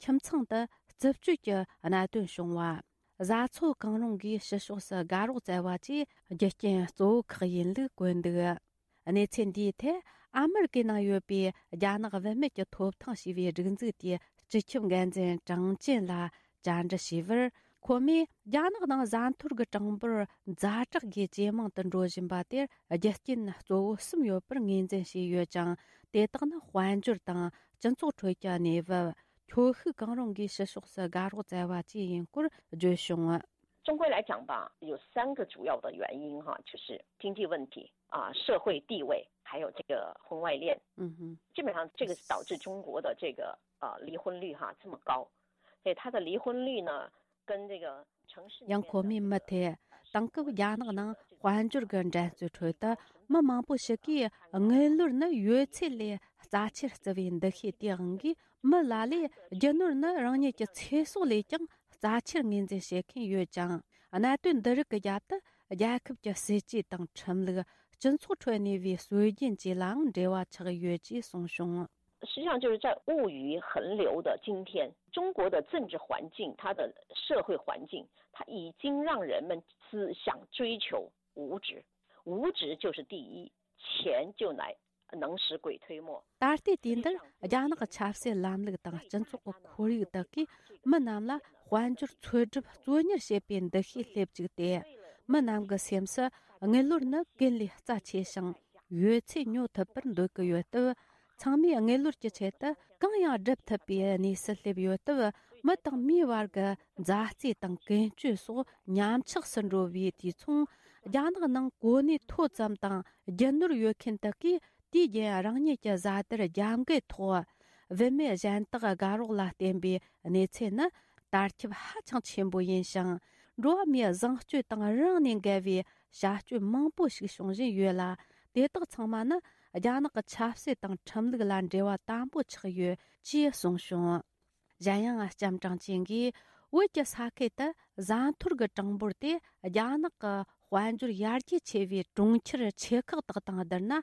ཁྱིམ་ཚང་དུ་རྩུབ་སྤྱོད་ཀྱི་གནད་དོན་བྱུང་བ། བཟའ་ཚོ་གང་རུང་གིས་ཕྱི་ཕྱོགས་སུ་དགའ་རོགས་བཙལ་བ་བཅས་རྒྱུ་རྐྱེན་གཙོ་བོ་ཁག་ཡིན་ལུགས་བཀོད་འདུག་གནས་ཚུལ་འདིའི་ཐད་ཨ་མེ་རི་ཀའི་ནང་ཡོད་པའི་རྒྱ་ནག་བུད་མེད་ཀྱི་ཐོབ་ཐང་ཞེས་པའི་སྒྲིག་འཛུགས་དེའི་སྤྱི་ཁྱབ་འགན་འཛིན་ཀྲང་ཅན་ལ་བཅར་འདྲི་ཞུས་པར། ཁོ་མོས་རྒྱ་ནག་ནང་བཟའ་འཐོར་གྱི་གྲངས་འབོར་ཛ་དྲག་གིས་ཇེ་མང་དུ་འགྲོ་བཞིན་པ་དེར་རྒྱུ་རྐྱེན་གཙོ་བོ་གསུམ་ཡོད་པར་ངོས་འཛིན་བྱས་ཡོད་ཅིང་། དེ་དག་ནི་དཔལ་འབྱོར་དང་སྤྱི་ཚོགས་ཁྲོད་ཀྱི་གནས་བབ། ཁྱོ་ཤུག་གང་རུང་གིས་ཕྱི་ཕྱོགས་སུ་དགའ་རོགས་བཙལ་བ་བཅས་ཡིན་སྐོར་བརྗོད་བྱུང་། 总归来讲吧，有三个主要的原因哈，就是经济问题啊、社会地位，还有这个婚外恋。嗯哼，基本上这个是导致中国的这个呃离婚率哈这么高，所以它的离婚率呢，跟这个城市里面的 ཡང་ཁོ་མོས་མུ་མཐུད་དེང་སྐབས་རྒྱ་ནག་ནང་དཔལ་འབྱོར་གྱི་འགྲན་རྩོད་ཁྲོད་དུ་མི་མང་པོ་ཞིག་གིས་དངུལ་ལོར་ནི་ཡོད་ཚད་ལས་རྩ་ཆེར་བརྩི་བའི་འདུ་ཤེས་དེའང་གིས། མི་ལ་ལས་རྒྱུ་ནོར་ནི་རང་ཉིད་ཀྱི་ཚེ་སྲོག་ལས་ཀྱང་རྩ་ཆེར་ངོས་འཛིན་བྱེད་མཁན་ཡོད་ཅིང་། གནད་དོན་འདི་རིགས་ཀྱི་རྒྱབ་ཏུ་རྒྱལ་ཁབ་ཀྱི་སྲིད་ཇུས་དང་ཁྲིམས་ལུགས། སྤྱི་ཚོགས་ཁྲོད་གནས་པའི་སྲོལ་རྒྱུན་བཅས་ལའང་འབྲེལ་བ་ཆགས་ཡོད་ཅེས་གསུངས་བྱུང་། 实际上就是在物欲横流的今天，中国的政治环境，它的社会环境，它已经让人们只想追求物质，物质就是第一，钱就来能使鬼推磨。 ད་ལྟའི་དུས་འདིར་རྒྱ་ནག་གི་ཆབ་སྲིད་ལམ་ལུགས་དང་སྤྱི་ཚོགས་ཀྱི་ཁོར་ཡུག་དག་གིས་མི་རྣམས་ལ་དཔལ་འབྱོར་འཚོལ་སྒྲུབ་གཙོ་གཉེར་བྱེད་པའི་འདུ་ཤེས་སླེབས་བཅུག་སྟེ། མི་རྣམས་ཀྱི་སེམས་སུ་དངུལ་ལོར་ནི་ཀུན་ལས་རྩ་ཆེ་ཞིང་ཡོད་ཚད་ཉོ་ཐུབ་པར་འདོད་ཀྱི་ཡོད་སྟབས། ཚང་མས་དངུལ་ལོར་གྱི་ཆེད་དུ་གང་ཡང་སྒྲུབ་ཐུབ་པའི་གནས་སུ་སླེབས་ཡོད་སྟབས། མི་དང་མིའི་བར་གྱི་མཛའ་བརྩེ་དང་ཀུན་སྤྱོད་སོགས་ཉམས་ཆག་སུ་འགྲོ་བའི་དུས་མཚུངས། རྒྱ་ནག་ནང་གོ་གནས་མཐོ་ཙམ་དང་རྒྱུ་ནོར་ཡོད་མཁན་དག་གིས་དུས་རྒྱུན་རང་ཉིད་ཀྱི་བཟའ་དར་རྒྱབ་འགལ་ཐོག་བུད་མེད་གཞན་དག་དགའ་རོགས་ལ་བརྟེན་པའི་གནས་ཚུལ་ནི་དར་ཁྱབ་ཧ་ཅང་ཆེན་པོ་ཡིན་ཞིང་། འགྲོ་བ་མིའི་བཟང་སྤྱོད་དང་རང་ནས་འགལ་བའི་བྱ་སྤྱོད་མང་པོ་ཞིག་བྱུང་བཞིན་ཡོད་ལ། དེ་དག་ཚང་མ་ནི་རྒྱ་ནག་གི་ཆབ་སྲིད་དང་ཁྲིམས་ལུགས་ལ་འབྲེལ་བ་དམ་པོ་ཆགས་ཡོད་ཅེས་གསུངས་བྱུང་། གཞན་ཡང་ལྕམ་ཀྲང་ཅན་གྱིས། བོད་ཀྱི་ས་ཁུལ་དུ་བཟའ་འཐོར་གྱི་གྲངས་འབོར་དེ་རྒྱ་ནག་གི་དཔལ་འབྱོར་ཡར་རྒྱས་ཆེ་བའི་གྲོང་ཁྱེར་ཆེ་ཁག་དག་དང་བསྡུར་ན་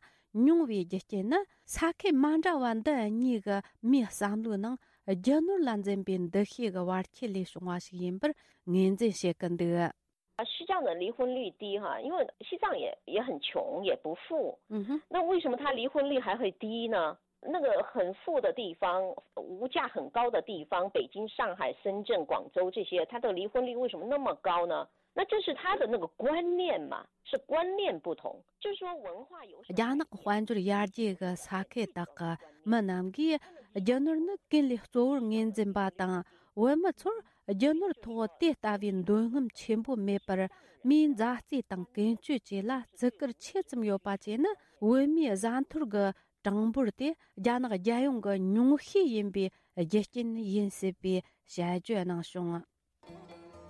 ཉུང་བའི་རྒྱུ་རྐྱེན་ནི། ས་ཁུལ་མ་འདྲ་བ་འདི་གཉིས་ཀྱི་མིའི་བསམ་བློའི་ནང་རྒྱུ་ནོར་ལ་འཛིན་པའི་འདུ་ཤེས་ཀྱི་བར་ཁྱད་ལས་བྱུང་བ་ཞིག་ཡིན་པར་ངོས་འཛིན་བྱེད་ཀྱི་འདུག། 啊，西藏的离婚率低哈，因为西藏也也很穷，也不富。嗯哼，那为什么他离婚率还会低呢？那个很富的地方，物价很高的地方，北京、上海、深圳、广州这些，它的离婚率为什么那么高呢？那这是他的那个观念嘛，是观念不同，就是说文化有什么。 རྒྱ་ནག་དཔལ་འབྱོར་ཡར་རྒྱས་ཀྱི་ས་ཁུལ་དག་གི་མི་རྣམས་ཀྱིས་རྒྱུ་ནོར་ནི་ཀུན་ལས་གཙོ་བོར་ངོས་འཛིན་པ་དང་། བོད་མི་ཚོར་རྒྱུ་ནོར་ཐོག་དེ་ལྟ་བུའི་འདོད་རྔམ་ཆེན་པོ་མེད་པར། མིའི་མཛའ་བརྩེ་དང་ཀུན་སྤྱོད་བཅས་ལ་བརྩི་བཀུར་ཆེ་ཙམ་ཡོད་པ་བཅས་ནི། བོད་མིའི་བཟའ་འཐོར་གྱི་གྲངས་འབོར་དེ་རྒྱ་ནག་རྒྱལ་ཡོངས་ཀྱི་ཉུང་ཤས་ཡིན་པའི་རྒྱུ་རྐྱེན་ཡིན་སྲིད་པའི་དཔྱད་བརྗོད་གནང་བྱུང་།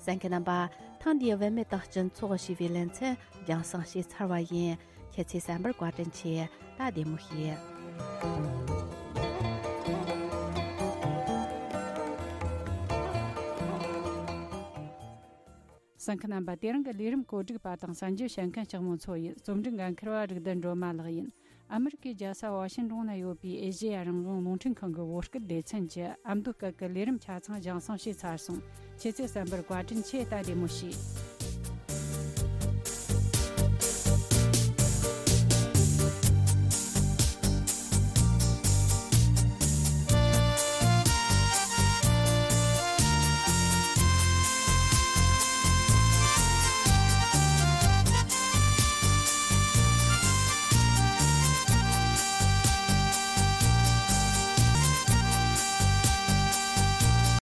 གསན་མཁན་རྣམ་པ། ཐེངས་འདིའི་བུད་མེད་དང་སྤྱི་ཚོགས་ཞེས་པའི་ལེ་ཚན་རྒྱང་སྲིང་བྱས་ཚར་བ་ཡིན། ཁྱེད་ཚོས་གསན་པར་བཀའ་དྲིན་ཆེ། ད་བདེ་མོ་བྱོས། གསན་མཁན་རྣམ་པ། དེ་རིང་གི་ལས་རིམ་གོ་སྒྲིག་པ་དང་གསན་རྒྱུ་བྱེད་མཁན་ལྕགས་མོ་མཚོ་ཡིན། རྩོམ་སྒྲིག་འགན་འཁུར་བ་རིག་ལྡན་སྒྲོལ་མ་ལགས་ཡིན། ཨ་མི་རི་ཀའི་རྒྱལ་ས་ཝ་ཤིང་ཏོན་ན་ཡོད་པའི་ཨེ་ཤེ་ཡ་རང་དབང་རླུང་འཕྲིན་ཁང་གི་བོད་སྐད་སྡེ་ཚན་གྱི་ཨ་མདོ་སྐད་ཀྱི་ལས་རིམ་ཆ་ཚང་རྒྱང་སྲིང་བྱས་ཚར་སོང་། ཁྱེད་ཚོས་གསན་པར་བཀའ་དྲིན་ཆེ། ད་བདེ་མོ་བྱོས།